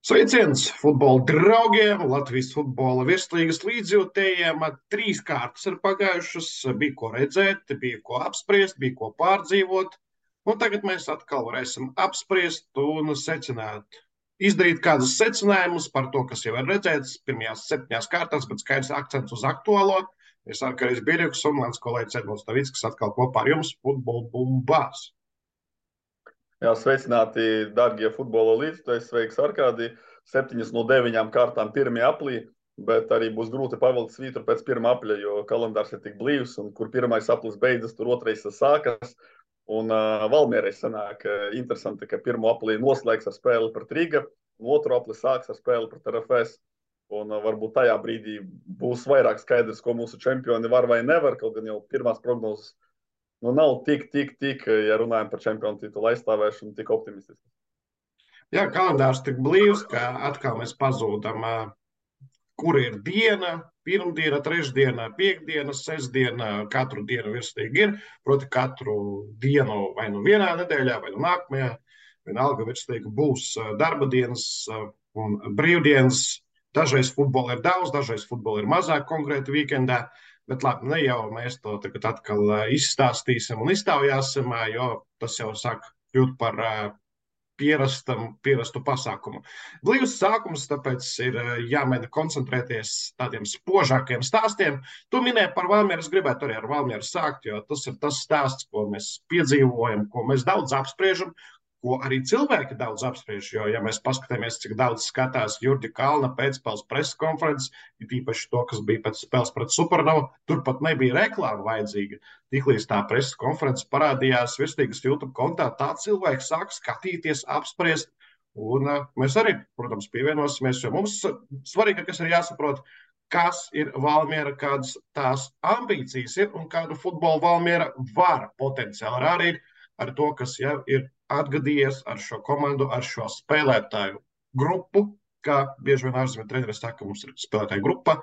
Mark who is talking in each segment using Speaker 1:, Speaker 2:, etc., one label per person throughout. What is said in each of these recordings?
Speaker 1: Sveiciens futbola draugiem, Latvijas futbola virslīgas līdzjūtējiem. Trīs kārtas ir pagājušas, bija ko redzēt, bija ko apspriest, bija ko pārdzīvot. Un tagad mēs atkal varēsim apspriest un secināt, izdarīt kādus secinājumus par to, kas jau ir redzēts pirmajās 7 kārtās, bet skaidrs akcents uz aktuālo. Es Arkaris Birjuks un mans kolēģis Edmunds Tavickas atkal kopā ar jums futbola bumbās.
Speaker 2: Jā, sveicināti, darbie futbola līdzekļi. Sveiks, Arkādī. 7 no 9 kārtām 1. aprīlī, bet arī būs grūti pavilkt svītru pēc 1. aprīļa, jo kalendārs ir tik blīvs, un kur 1. aprīlis beidzas, tur 2. sākas. Un Valmierai sanāk interesanti, ka 1. aprīlī noslēgs ar spēli pret Riga, un 2. aprīlī sāks ar spēli pret RFS. Un varbūt tajā brīdī būs vairāk skaidrs, ko mūsu čempioni var vai nevar, kaut gan jau pirmās prognozes nav tik, ja runājam par čempionu titulu aizstāvēšanu, tik optimistiski.
Speaker 1: Jā, kalendārs tik blīvs, ka atkal mēs pazūdam, kur ir diena, pirmdiena, trešdiena, piekdiena, sestdiena, katru dienu virslīgi ir. Proti katru dienu vai nu vienā nedēļā, vai nu nākamajā, vienalga virslīgi būs darba dienas un brīvdienas. Dažreiz futbola ir daudz, dažreiz futbola ir mazāk konkrēti weekendā. Bet labi, ne jau mēs to tagad atkal izstāstīsim un iztaujāsim, jo tas jau sāk kļūt par pierastu pasākumu. Blīvs sākums, tāpēc ir jāmēģina koncentrēties tādiem spožākiem stāstiem. Tu minēji par Valmieru, es gribētu arī ar Valmieru sākt, jo tas ir tas stāsts, ko mēs piedzīvojam, ko mēs daudz apspriežam, ko arī cilvēki daudz apspriež, jo, ja mēs paskatāmies, cik daudz skatās Jurģa Kalna pēcspēles preses konferences, ir īpaši to, kas bija pēc spēles pret Supernovu, tur pat nebija reklāma vajadzīga. Tiklīdz tā preses konferences parādījās virslīgas YouTube kontā, tā cilvēki sāk skatīties, apspriest, un mēs arī, protams, pievienosimies, jo mums svarīgākais ir jāsaprot, kas ir Valmiera, kādas tās ambīcijas ir un kādu futbolu Valmiera var potenciāli rādīt ar to, kas jau ir atgadījies ar šo komandu, ar šo spēlētāju grupu, kā bieži vien ārzemju treneri saka, mums ir spēlētāju grupa.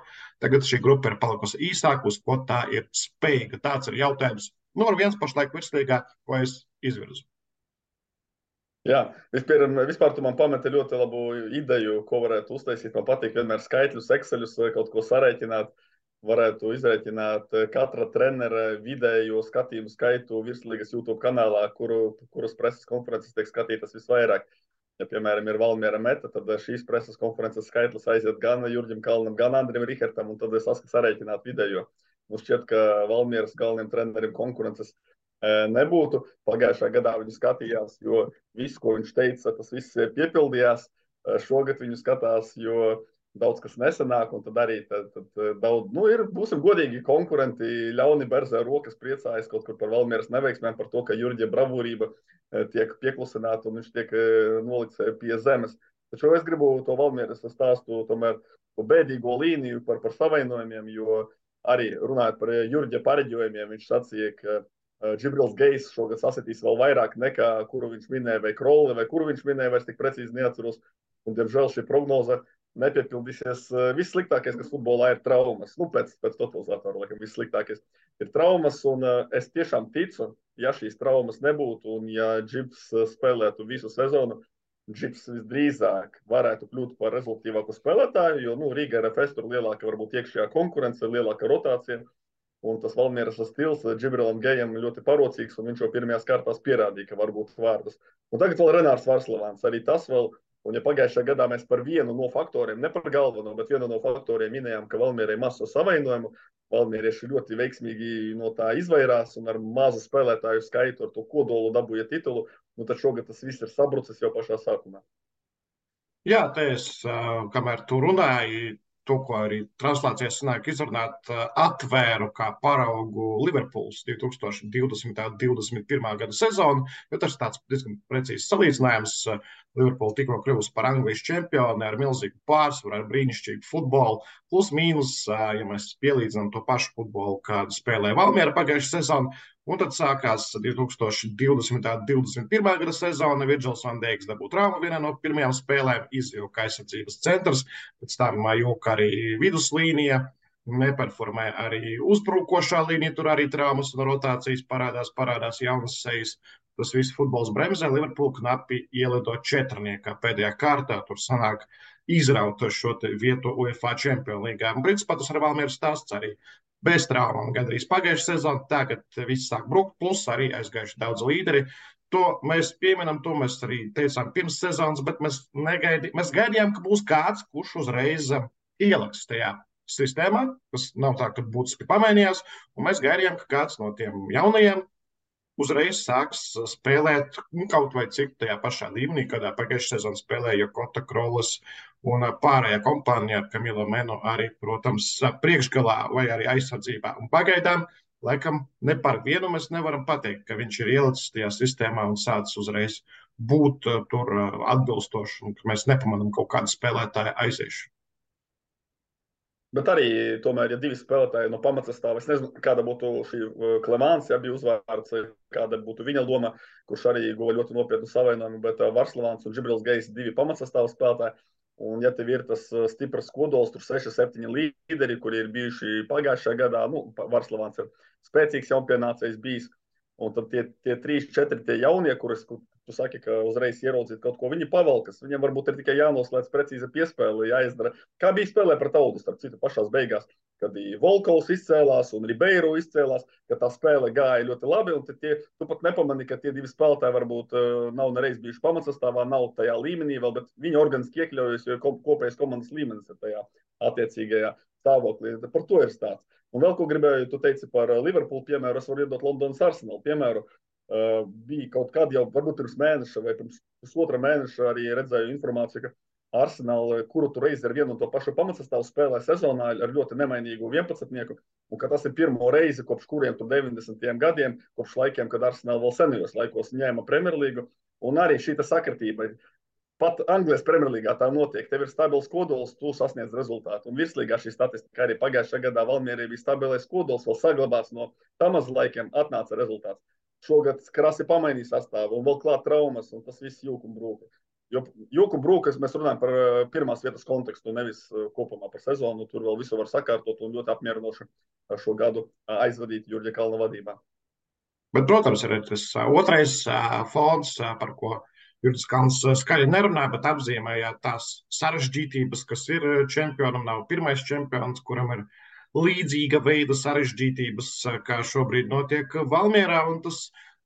Speaker 1: Tagad šī grupa ir palikusi īsāka, uz ko tā ir spējīga. Tāds ir jautājums numur 1 pašlaik virslīgā, ko es izvirzu.
Speaker 2: Jā, vispār tu man pameti ļoti labu ideju, ko varētu uztaisīt. Man patīk vienmēr skaitļus, Exceļus, kaut ko sarēķināt. Varētu izrēķināt katra trenera vidējo skatījumu skaitu virslīgas YouTube kanālā, kuras preses konferences tiek skatītas visvairāk. Ja, piemēram, ir Valmiera meta, tad šīs preses konferences skaitlis aiziet gan Jurģim Kalnam, gan Andrim Rihertam, un tad es sarēķināt vidējo. Mums šķiet, ka Valmieras galvenajam trenerim konkurences nebūtu. Pagājušā gadā viņu skatījās, jo viss, ko viņš teica, tas viss piepildījās. Šogad viņu skatās, jo daudz kas nesanāk, un tad arī daudz, būsim godīgi, konkurenti ļauni berzē rokas priecājas kaut kur par Valmieras neveiksmēm, par to, ka Jurģa bravūrība tiek pieklusināta un viņš tiek nolikts pie zemes. Taču es gribu to Valmieras stāstu tomēr bēdīgo līniju par savainojumiem, jo arī runājot par Jurģa pareģojumiem, viņš sacīja, ka Džibrils Gejs šogad sasitīs vēl vairāk nekā kuru viņš minēja, vai Krolli, vai kuru viņš minēja, vairs tik precīzi neatceros. Un, diemžēl, šī prognoze nepiepildīsies. Vissliktākais, kas futbolā ir traumas. Pēc totalizatora, laikam, vissliktākais ir traumas, un es tiešām ticu, ja šīs traumas nebūtu, un ja Džibs spēlētu visu sezonu, Džibs visdrīzāk varētu kļūt par rezultātīvāku spēlētāju, jo, Riga RFS tur lielāka varbūt iekšējā konkurence, lielāka rotācija, un tas Valmieras stils Džibrilam Gejam ļoti parocīgs, un viņš jau pirmajās kārtās pierādīja, ka var būt vārdas. Un tagad vēl Renārs Varslavāns, arī tas vēl. Un ja pagājušajā gadā mēs par vienu no faktoriem, ne par galveno, bet vienu no faktoriem minējām, ka Valmierai maz savainojumu, valmierieši ļoti veiksmīgi no tā izvairās un ar mazu spēlētāju skaitu ar to kodolu dabūja titulu, tad šogad tas viss ir sabrucis jau pašā sākumā.
Speaker 1: Jā, te es, kamēr tu runāji, to, ko arī translācijas sanāk izrunāt, atvēru kā paraugu Liverpools 2020.–2021. gada sezonu, jo tas ir tāds diezgan precīzs salīdzinājums. Liverpool tikko kļuvusi par Anglijas čempioni ar milzīgu pārsvaru, ar brīnišķīgu futbolu, plus mīnus, ja mēs pielīdzinām to pašu futbolu, kādu spēlēja Valmiera pagājušajā sezonu. Un tad sākās 2020.–2021. gada sezona. Virgils van Dijks dabūja traumu vienā no pirmajām spēlēm, izvilka aizsardzības centrs, pēc tam jūka arī viduslīnija, neperformē arī uzbrukošā līnija, tur arī traumas un rotācijas parādās jaunas sejas. tas viss futbols bremzē. Liverpool knapi ielido četrniekā pēdējā kārtā. Tur sanāk izraut šo vietu UEFA Champions League. Un principā tas ar Valmieru stāsts arī bez traumām. Gandrīz pagājušā sezona, tagad viss sāk brukt, plus arī aizgājuši daudz līderi. To mēs pieminam, to mēs arī teicām pirms sezonas, bet mēs gaidījām, ka būs kāds, kurš uzreiz ieliks tajā sistēmā, kas nav tā, ka būtiski pamainījās, un mēs gaidījām, ka kāds no tiem jaunajiem uzreiz sāks spēlēt kaut vai cik tajā pašā līmenī, kādā pagājušajā sezonā spēlēja Kota Krolas un pārējā kompānija ar Kamilo Menu arī, protams, priekšgalā vai arī aizsardzībā. Un pagaidām, laikam, ne par vienu mēs nevaram pateikt, ka viņš ir ielicis tajā sistēmā un sācis uzreiz būt tur atbilstoši, un ka mēs nepamanām kaut kādu spēlētāju aiziešanu.
Speaker 2: Bet arī, tomēr, ja divi spēlētāji no pamatsastāva, es nezinu, kāda būtu šī Klemāns, ja bija uzvārds, kāda būtu viņa loma, kurš arī guva ļoti nopietnu savainojumu, bet Varslavāns un Džibrils Gejs divi pamatsastāva spēlētāji. Un, ja tev ir tas stiprs kodols, tur 6-7 līderi, kuri ir bijuši pagājušajā gadā, Varslavāns ir spēcīgs jaunpienācējs bijis, un tad tie 3-4 tie jaunie, kurus tu saki, ka uzreiz ieraudzīt kaut ko, viņi pavalkas. Viņam varbūt ir tikai jānoslēdz precīza piespēle, jāizdara. Kā bija spēlē pret Audu, starp citu, pašās beigās, kad Volkovs izcēlās un Ribeiro izcēlās, ka tā spēle gāja ļoti labi, un tu pat nepamani, ka tie divi spēlētāji varbūt nav nereiz bijuši pamatsastāvā, nav tajā līmenī vēl, bet viņi organiski iekļaujas, jo kopējais komandas līmenis ir tajā attiecīgajā stāvoklī. Par to ir stāsts. Un vēl ko gribēju, tu teici par Liverpool piemēru, es varu iedot Londonas Arsenal piemēru. Bija kaut kad jau, varbūt pirms mēneša vai pirms pusotra mēneša arī redzēju informāciju, ka Arsenal, kuru tu reizi ar vienu un to pašu pamatsastāvu spēlē sezonā ar ļoti nemainīgu 11-nieku, un ka tas ir pirmo reizi kopš kuriem tur 90. gadiem, kopš laikiem, kad Arsenal vēl senajos laikos ņēma Premjerlīgu, un arī šī sakritība. Pat Anglijas Premjerlīgā tā notiek. Tev ir stabils kodols, tu sasniedz rezultātu. Un virslīgā šī statistika arī pagājušajā gadā Valmierī bija stabilais kodols, vēl saglabās no Tamas laikiem, atnāca rezultāts. Šogad krasi pamainīja sastāvu un vēl klāt traumas, un tas viss jūku un brūka. Jo jūku un brūkas mēs runājam par pirmās vietas kontekstu, nevis kopumā par sezonu. Tur vēl visu var sakārtot un ļoti apmierinoši šo gadu aizvadīt Jurģa Kalna vadībā.
Speaker 1: Bet, protams, ir tas otrais fons, par ko Jurģis Kalns skaļi nerunāja, bet apzīmēja tās sarežģītības, kas ir čempionam. Nav pirmais čempions, kuram ir līdzīga veida sarežģītības, kā šobrīd notiek Valmierā, un tas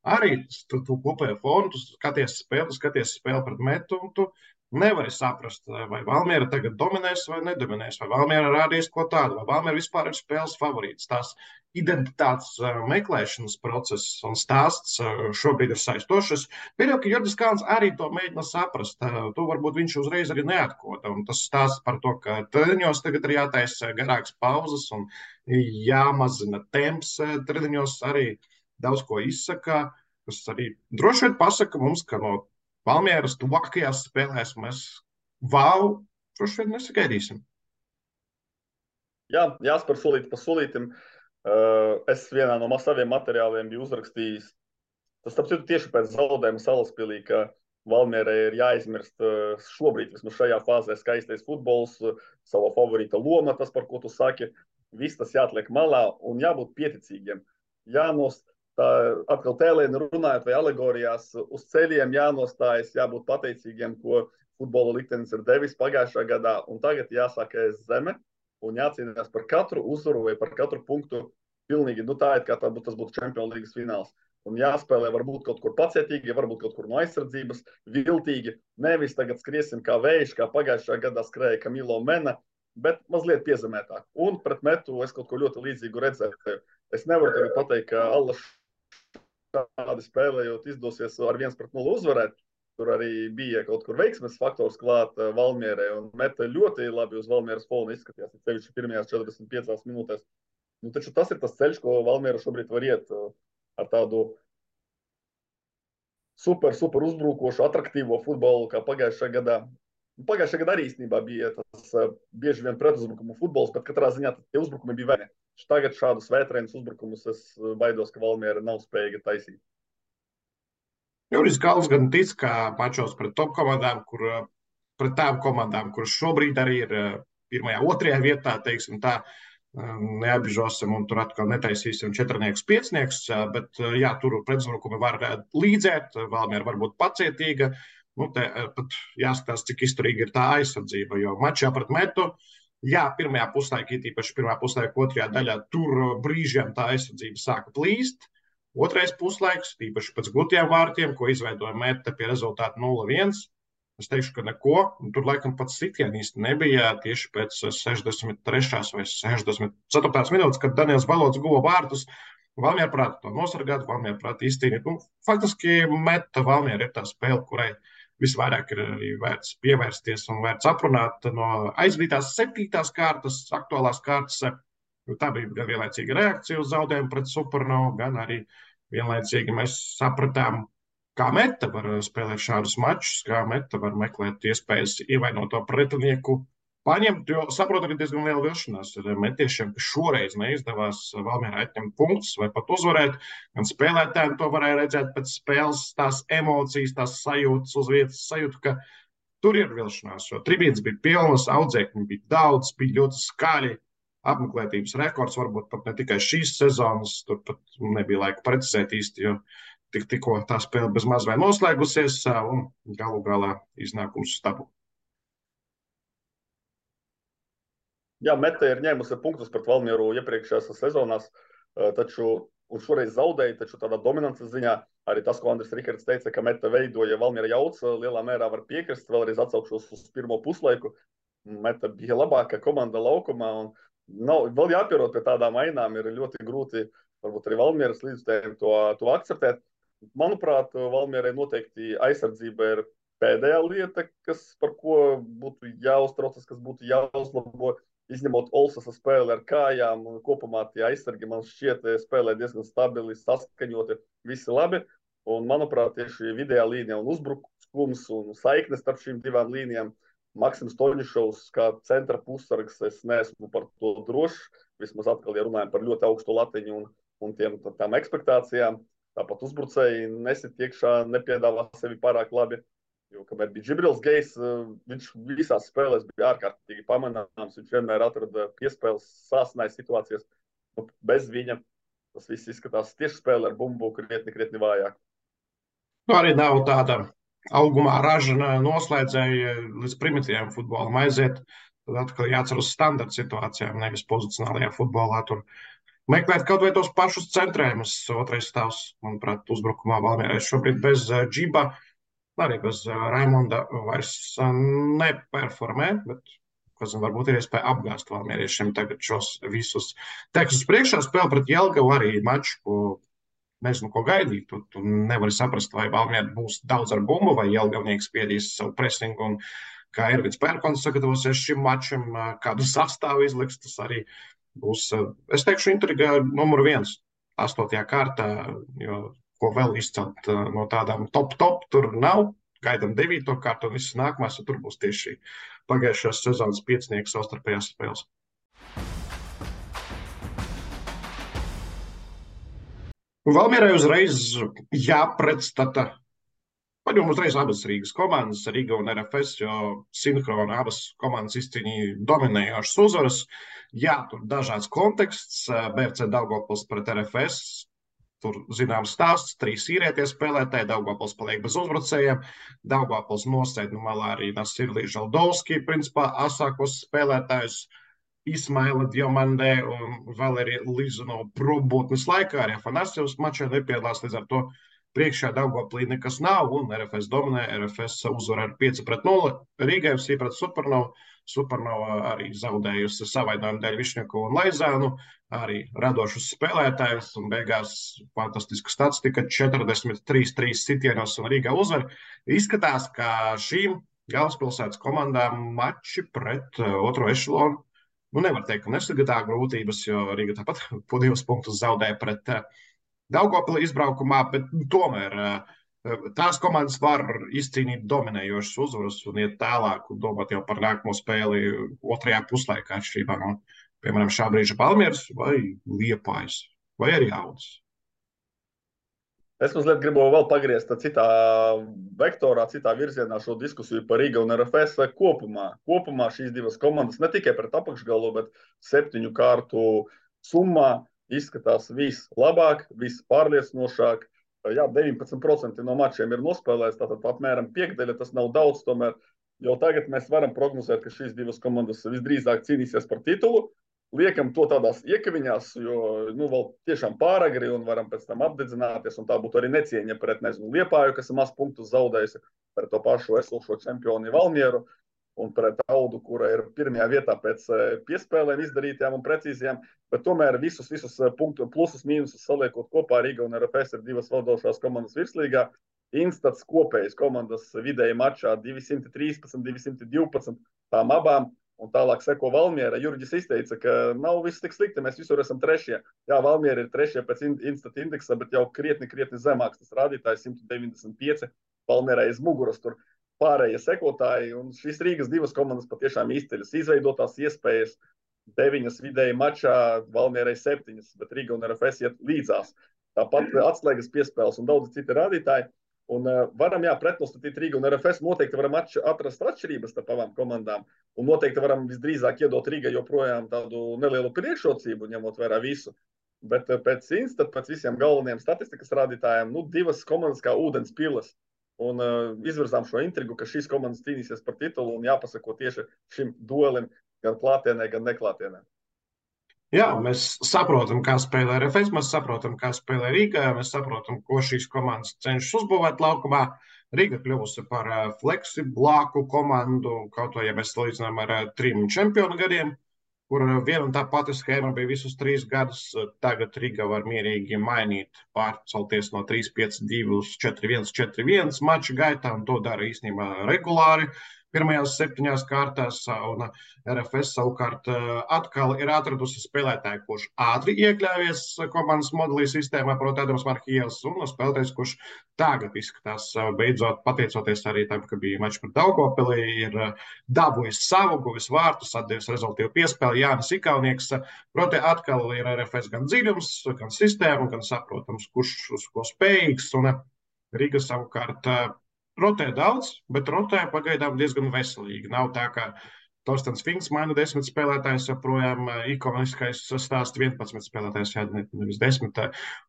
Speaker 1: arī tu kopējo fonu, tu skaties spēli pret Metu, un tu nevari saprast, vai Valmiera tagad dominēs vai nedominēs, vai Valmiera rādīs ko tādu, vai Valmiera vispār ir spēles favorīts. Tās identitātes meklēšanas process un stāsts šobrīd ir saistošs. Pieļauju, ka Jurģis Kalns arī to mēģina saprast. To varbūt viņš uzreiz arī neatkoda. Un tas stāsts par to, ka treniņos tagad ir jātaisa garāks pauzes un jāmazina temps treniņos arī daudz ko izsaka, kas arī droši vien pasaka mums, ka no Valmieras tuvākajās spēlēs mēs droši vien nesagaidīsim.
Speaker 2: Jā, jāspēr solīt pa solītim. Es vienā no saviem materiāliem biju uzrakstījis, tas tāpēc tieši pēc zaudējuma Salaspilī, ka Valmierai ir jāizmirst šobrīd, vismaz šajā fāzē, skaistais futbols, sava favorīta loma, tas, par ko tu saki, viss tas jāatliek malā un jābūt pieticīgiem. Tā atkal tēlēni runājot vai alegorijās, uz ceļiem jānostājas, jābūt pateicīgiem, ko futbola liktenis ir devis pagājušā gadā, un tagad jāsāk ēst zeme un jācīnās par katru uzvaru vai par katru punktu pilnīgi, tā ir kā tas būtu Champions Līgas fināls. Un jāspēlē varbūt kaut kur pacietīgi, varbūt kaut kur no aizsardzības, viltīgi, nevis tagad skriesim kā vējš, kā pagājušā gadā skrēja Kamilo Mena, bet mazliet piezemētāk. Un pret Metu es kaut ko ļoti līdzīgu redzēju. Es nevaru tagad pateikt, ka Allaš tādi spēlējot izdosies ar 1-0 uzvarēt. Tur arī bija kaut kur veiksmes faktors klāt Valmierai un Meta ļoti labi uz Valmieras fona izskatījās. Sevišķi pirmajās 45 minūtēs. Taču tas ir tas ceļš, ko Valmiera šobrīd var iet ar tādu super uzbrukošu, atraktīvo futbolu, kā pagājušajā gadā. Pagājušajā gadā arī īstenībā bija tas bieži vien pretuzbrukumu futbols, bet katrā ziņā tie uzbrukumi bija vēni. Tagad šādus vētrēnus uzbrukumus es baidos, ka Valmiera nav spējīga taisīt.
Speaker 1: Jurģis Kalns gan tic, ka mačos pret top komandām, pret tām komandām, kuras šobrīd arī ir pirmajā, otrajā vietā, teiksim tā, neapbižosim un tur atkal netaisīsim 4-5, bet jā, tur pretuzbrukumi var līdzēt, Valmiera var būt pacietīga. Te pat jāskatās, cik izturīga ir tā aizsardzība, jo mačā pret Metu, jā, pirmajā puslaikā, īpaši pirmā puslaika otrajā daļā, tur brīžiem tā aizsardzība sāka plīst. Otrais puslaiks, īpaši pēc gūtiem vārtiem, ko izveidoja Meta pie rezultāta 0-1. Es teikšu, ka neko. Tur laikam pats sitiens īsti nebija tieši pēc 63. vai 64. minūtes, kad Daniels Balots guva vārtus. Valmiera prāta to nosargāt, Valmiera prāta izcīnīt. Faktiski Meta Valmiera ir tā spēle, kurai visvairāk ir arī vērts pievērsties un vērts aprunāt no aizvadītās 7. kārtas, aktuālās kārtas. Tā bija gan vienlaicīga reakcija uz zaudējumu pret Supernovu, gan arī vienlaicīgi mēs sapratām, kā Meta var spēlēt šādus mačus, kā Meta var meklēt iespējas ievainoto pretinieku paņemt, jo saprotu, ka diezgan liela vilšanās ir metiešiem, ka šoreiz neizdevās Valmierā atņemt punktus vai pat uzvarēt, gan spēlētājiem to varēja redzēt pēc spēles, tās emocijas, tās sajūtas uz vietas, sajūta, ka tur ir vilšanās, jo tribīnes bija pilnas, audzēkņi bija daudz, bija ļoti skaļi. Apmeklētības rekords varbūt pat ne tikai šīs sezonas, tur pat nebija laika precizēt īsti, jo tikko tā spēle bez maz vai noslēgusies un galu galā iznākums stabu.
Speaker 2: Jā, Meta ir ņēmusi punktus pret Valmieru iepriekšējās sezonās, un šoreiz zaudēja, taču tādā dominances ziņā arī tas, ko Andris Rikards teica, ka Meta veidoja Valmiera jauc, lielā mērā var piekrist, vēlreiz atsaukšos uz pirmo puslaiku. Meta bija labākā komanda laukumā un vēl jāpierod pie tādām ainām, ir ļoti grūti, varbūt arī Valmieras līdzstājiem to akceptēt. Manuprāt, Valmierai noteikti aizsardzība ir pēdējā lieta, par ko būtu jāuztraucas, kas būtu jāuzlabo, izņemot Olsasa spēli ar kājām, un kopumā tie aizsargi man šķiet spēlē diezgan stabili, saskaņoti, visi labi. Un, manuprāt, tieši vidējā līnija un uzbrukums un saiknes starp šīm divām līnijām Maksims Toņišovs kā centra pussargs, es neesmu par to drošs. Vismaz atkal, ja runājam par ļoti augstu latiņu un tām ekspektācijām, tāpat uzbrucēji nesit iekšā, nepiedāvā sevi pārāk labi. Jo, kamēr bija Džibrils Gejs, viņš visās spēlēs bija ārkārtīgi pamanāms, viņš vienmēr atrada piespēles, sāsināja situācijas. Bez viņa tas viss izskatās tieši spēle ar bumbu krietni vājāk.
Speaker 1: Arī nav tāda augumā ražana noslēdzēja līdz primitīviem futbolam aiziet, tad atkal jācer uz standarta situācijām, nevis pozicionālajā futbolā. Tur meklēt kaut vai tos pašus centrējumus. Otrais stāvs, manuprāt, uzbrukumā Valmierai šobrīd bez Džiba, arī bez Raimonda vairs neperformē, bet, varbūt ir iespēja apgāzt valmieriešiem tagad šos visus tekstus priekšā. Spēle pret Jelgavu arī maču, ko nezinu, ko gaidīt. Tu nevari saprast, vai Valmiera būs daudz ar bumbu, vai Jelgavnieks spiedīs savu presingu, un kā Ervins Pērkons sagatavosies šim mačam, kādu sastāvu izliks, tas arī būs, es teikšu, intriga numur 1, 8. kārtā, jo ko vēl izcelt no tādām top, tur nav. Gaidām 9. kārtu un visas nākamās, un tur būs tieši pagājušās sezonas 5 savstarpējās spēles. Valmierai uzreiz jāpretstata, paņem uzreiz abas Rīgas komandas, Riga un RFS, jo sinhroni abas komandas izcīnīja dominējošas uzvaras. Jā, tur dažāds konteksts, BFC Daugavpils pret RFS, tur zināms stāsts, 3 īrietie spēlētāji, Daugavpils paliek bez uzbrucējiem, Daugavpils nosēd no malā arī Nasirlī Žaldovski, principā asākos spēlētājus, Ismaila Diomandē un Valerija Lizunova probūtnes laikā, arī Afanasjevs mačā nepiedalās, līdz ar to priekšā Daugavpilī nekas nav, un RFS dominē, RFS uzvar ar 5-0, Rīgai FC pret Supernovu, Supernova arī zaudējusi savainojumu dēļ Višņakovu un Laizānu, arī radošus spēlētājus, un beigās fantastiska statistika 43-3 sitienos un Rīgā uzvar. Izskatās, ka šīm galvaspilsētas komandām mači pret otro ešelonu, nevar teikt, ka nesagadā grūtības, jo Rīga tāpat po 2 punktus zaudēja pret Daugavpili izbraukumā, bet tomēr tās komandas var izcīnīt dominējošas uzvaras un iet tālāk un domāt jau par nākamo spēli otrajā puslaikā atšķirībā no, piemēram, šā brīža Valmieras vai Liepājas vai arī Audas.
Speaker 2: Es mazliet gribu vēl pagriezt citā vektorā, citā virzienā šo diskusiju par Riga un RFS kopumā. Kopumā šīs divas komandas ne tikai pret apakšgalu, bet 7 kārtu summā izskatās vislabāk, vispārliecinošāk. Jā, 19% no mačiem ir nospēlēts, tātad apmēram piekdaļa, tas nav daudz, tomēr jau tagad mēs varam prognozēt, ka šīs divas komandas visdrīzāk cīnīsies par titulu. Liekam to tādās iekaviņās, jo vēl tiešām pāragri un varam pēc tam apdedzināties, un tā būtu arī necieņa pret, nezinu, Liepāju, kas ir maz punktus zaudējusi, pret to pašu esošo čempioni Valmieru un pret Audu, kura ir pirmajā vietā pēc piespēlēm izdarītajām un precīzajām, bet tomēr visus punktu plusus, mīnusus saliekot kopā, Riga un RFS ir divas valdošās komandas virslīgā. Instats kopējas komandas vidēji mačā 213, 212, tām abām. Un tālāk seko Valmiera. Jurģis izteica, ka nav viss tik slikti, mēs visur esam trešie. Jā, Valmiera ir trešie pēc Instat indeksa, bet jau krietni zemāks tas rādītājs 195. Valmierai aiz muguras tur pārējie sekotāji. Un šīs Rīgas divas komandas patiešām izceļas. Izveidotās iespējas 9 vidēji mačā, Valmierai 7, bet Riga un RFS iet līdzās. Tāpat atslēgas piespēles un daudz citi rādītāji. Un varam, pretnostatīt Riga un RFS, noteikti varam atrast atšķirības starp abām komandām, un noteikti varam visdrīzāk iedot Riga joprojām tādu nelielu priekšrocību, ņemot vērā visu. Bet pēc Instat, pēc visiem galvenajiem statistikas rādītājiem, divas komandas kā ūdens pilas, un izvirzām šo intrigu, ka šīs komandas cīnīsies par titulu, un jāpasako tieši šim duelim gan klātienē, gan neklātienē.
Speaker 1: Jā, mēs saprotam, kā spēlē RFS, mēs saprotam, kā spēlē Rīgā, mēs saprotam, ko šīs komandas cenšas uzbūvēt laukumā. Rīga kļuvusi par fleksiblāku komandu, kaut vai, ja mēs salīdzinām ar 3 čempionu gadiem, kur viena un tā pati schēma bija visus 3 gadus. Tagad Rīga var mierīgi mainīt, pārcelties no 3-5-2 uz 4-1, 4-1 maču gaitā, un to dara īstenībā regulāri. Pirmajās 7 kārtās, un RFS savukārt atkal ir atradusi spēlētāju, kurš ātri iekļāvies komandas modelī sistēmā, proti Ādams Markijevs, un spēlētājs, kurš tagad izskatās beidzot, pateicoties arī tam, ka bija mačs pret Daugavpili, ir dabūjis savu, guvis vārtus, atdevis rezultīvu piespēli Jānis Ikaunieks. Proti atkal ir RFS gan dziļums, gan sistēma, gan saprotams, kurš uz ko spējīgs, un Riga savukārt rotē daudz, bet rotē pagaidām diezgan veselīgi. Nav tā, ka Torstens Finks maina 10 spēlētājus, joprojām ikoniskais stāsts 11 spēlētājus, nevis 10.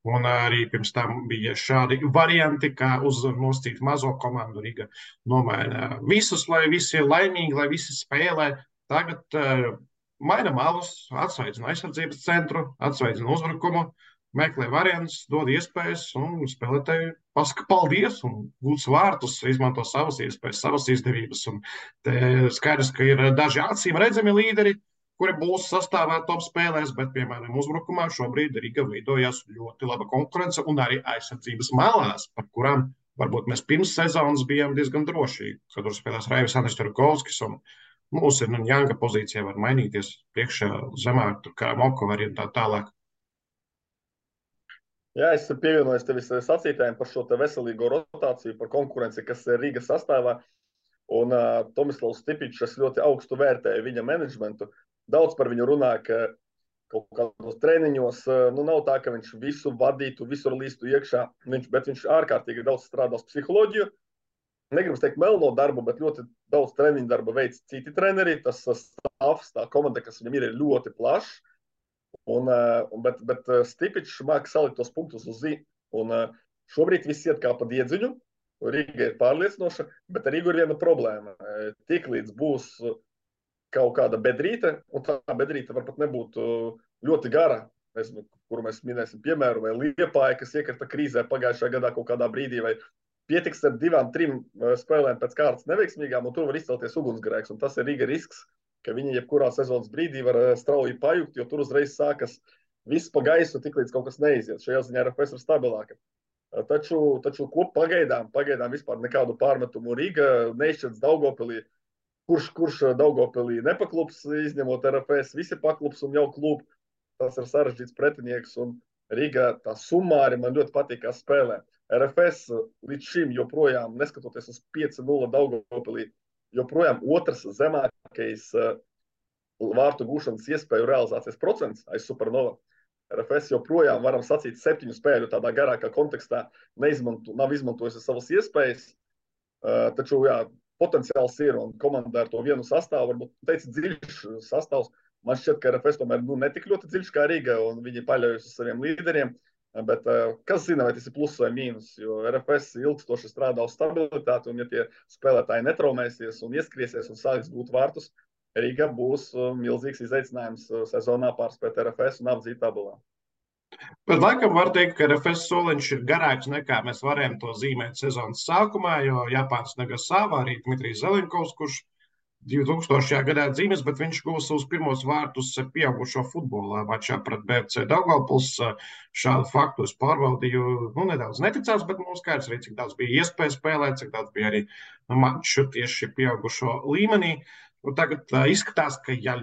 Speaker 1: Un arī pirms tam bija šādi varianti, kā uz noscīt mazo komandu Riga nomaina visus, lai visi ir laimīgi, lai visi spēlē. Tagad maina malus, atsveidzina aizsardzības centru, atsveidzina uzbrukumu, meklē variantus, dod iespējas, un spēlētāji pasaka paldies un gūs vārtus, izmanto savas iespējas, savas izdevības. Un te skaidrs, ka ir daži acīm redzami līderi, kuri būs sastāvā top spēlēs, bet, piemēram, uzbrukumā šobrīd Riga veidojās ļoti laba konkurence un arī aizsardzības malās, par kurām varbūt mēs pirms sezonas bijām diezgan droši, kad tur spēlēs Raivis Andris Turkovskis un mūs ir Janga pozīcija var mainīties priekšā zemāk, tur kā Mokovari un tā tālāk.
Speaker 2: Jā, es pievienojos tevis sacītājiem par šo veselīgo rotāciju, par konkurenci, kas ir Rīgas sastāvā. Un Tomislavs Stipičs ļoti augstu vērtēja viņa menedžmentu. Daudz par viņu runā, ka kaut kādos treniņos nav tā, ka viņš visu vadītu, visur līstu iekšā, bet viņš ārkārtīgi daudz strādās psiholoģiju. Negribu teikt melno darbu, bet ļoti daudz treniņu darba veids citi treneri. Tas stāvs, tā komanda, kas viņam ir ļoti plašs. Bet Stipičs māk salikt tos punktus uz zi. Un šobrīd viss iet kā pa diedziņu. Rīga ir pārliecinoša, bet ar Rīgu ir viena problēma. Tiklīdz būs kaut kāda bedrīte, un tā bedrīte var pat nebūt ļoti gara, nezinu, kuru mēs minēsim piemēru, vai Liepāja, kas iekrita krīzē pagājušajā gadā kaut kādā brīdī, vai pietiks ar 2-3 spēlēm pēc kārtas neveiksmīgām, un tur var izcelties ugunsgrēks. Un tas ir Rīga risks, ka viņi jebkurā sezonas brīdī var strauji pajukt, jo tur uzreiz sākas viss pa gaisu, tiklīdz kaut kas neiziet. Šajā ziņā RFS ir stabilāka. Taču pagaidām vispār nekādu pārmetumu Rīga neizšķirts Daugavpilī. Kurš Daugavpilī nepaklups, izņemot RFS, visi paklups un jau klub. Tas ir sarežģīts pretinieks, un Rīga tā summāri man ļoti patīk, kā spēlē. RFS līdz šim joprojām, neskatoties uz 5-0 Daugavpilī, joprojām otrs zemākais vārtu gūšanas iespēju realizācijas procents aiz Supernova. RFS joprojām, varam sacīt, 7 spēļu tādā garākā kontekstā nav izmantojusi savas iespējas. Taču, jā, potenciāls ir un komanda ar to vienu sastāvu, varbūt teica dziļš sastāvs. Man šķiet, ka RFS tomēr netik ļoti dziļš kā Riga un viņi paļaujas uz saviem līderiem. Bet kas zina, vai tas ir pluss vai mīnus, jo RFS ilgstoši strādā uz stabilitāti, un ja tie spēlētāji netraumēsies un ieskriesies un sāks gūt vārtus, Riga būs milzīgs izaicinājums sezonā pārspēt RFS un apdzīt tabulā.
Speaker 1: Bet laikam var teikt, ka RFS soliņš ir garāks nekā mēs varējām to zīmēt sezonas sākumā, jo Japāns Nagasava, arī Dmitrijs Zelenkovs, kurš 2000. gadā dzīves, bet viņš guva savus pirmos vārtus pieaugušo futbolā mačā pret BFC Daugavpils. Šādu faktu es pārbaudīju, nedaudz neticās, bet mums skaidrs arī, cik daudz bija iespēja spēlēt, cik daudz bija arī maču tieši pieaugušo līmenī. Tagad izskatās, ka ja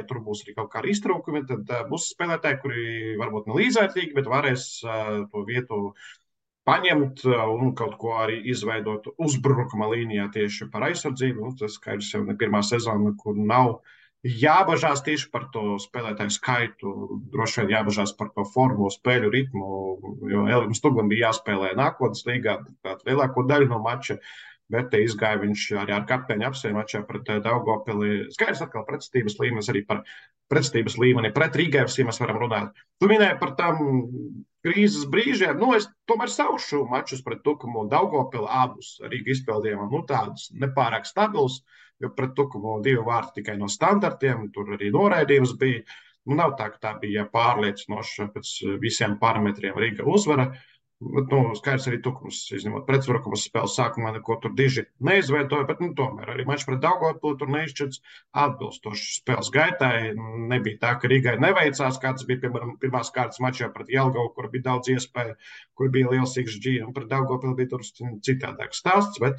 Speaker 1: tur būs arī kaut kādi iztrūkumi, tad būs spēlētāji, kuri varbūt ne līdzvērtīgi, bet varēs to vietu paņemt un kaut ko arī izveidot uzbrukuma līnijā tieši par aizsardzību. Tas skaidrs jau ne pirmā sezona, kur nav jābažās tieši par to spēlētāju skaitu, droši vien jābažās par to formu, spēļu ritmu, jo Elim Stugam bija jāspēlē nākotnes līgā, lielāko daļu no mača. Bet te izgāja viņš arī ar kapteiņu apsēju mačā pret Daugavpili. Skaidrs atkal pretestības līmenis, arī par pretestības līmeni pret Rīgēvs, ja mēs varam runāt. Tu minēji par tām krīzes brīžiem. Es tomēr saušu mačus pret Tukumu un Daugavpili abus Rīga izpildījumam. Tādus nepārāk stabilus, jo pret Tukumu 2 vārti tikai no standartiem, tur arī noraidījums bija. Nav tā, ka tā bija pārliecinoša pēc visiem parametriem Rīga uzvara. Bet, skaidrs arī Tukums, izņemot pretuzbrukumus spēles sākumā, neko tur diži neizveidoja, bet tomēr arī mačs pret Daugavpili tur neizšķirts atbilstoši spēles gaitai. Nebija tā, ka Rīgai neveicās, kā tas bija, piemēram, pirmās kārtas mačā pret Jelgavu, kur bija daudz iespēju, kur bija liels XG, un pret Daugavpili bija tur citādāks stāsts, bet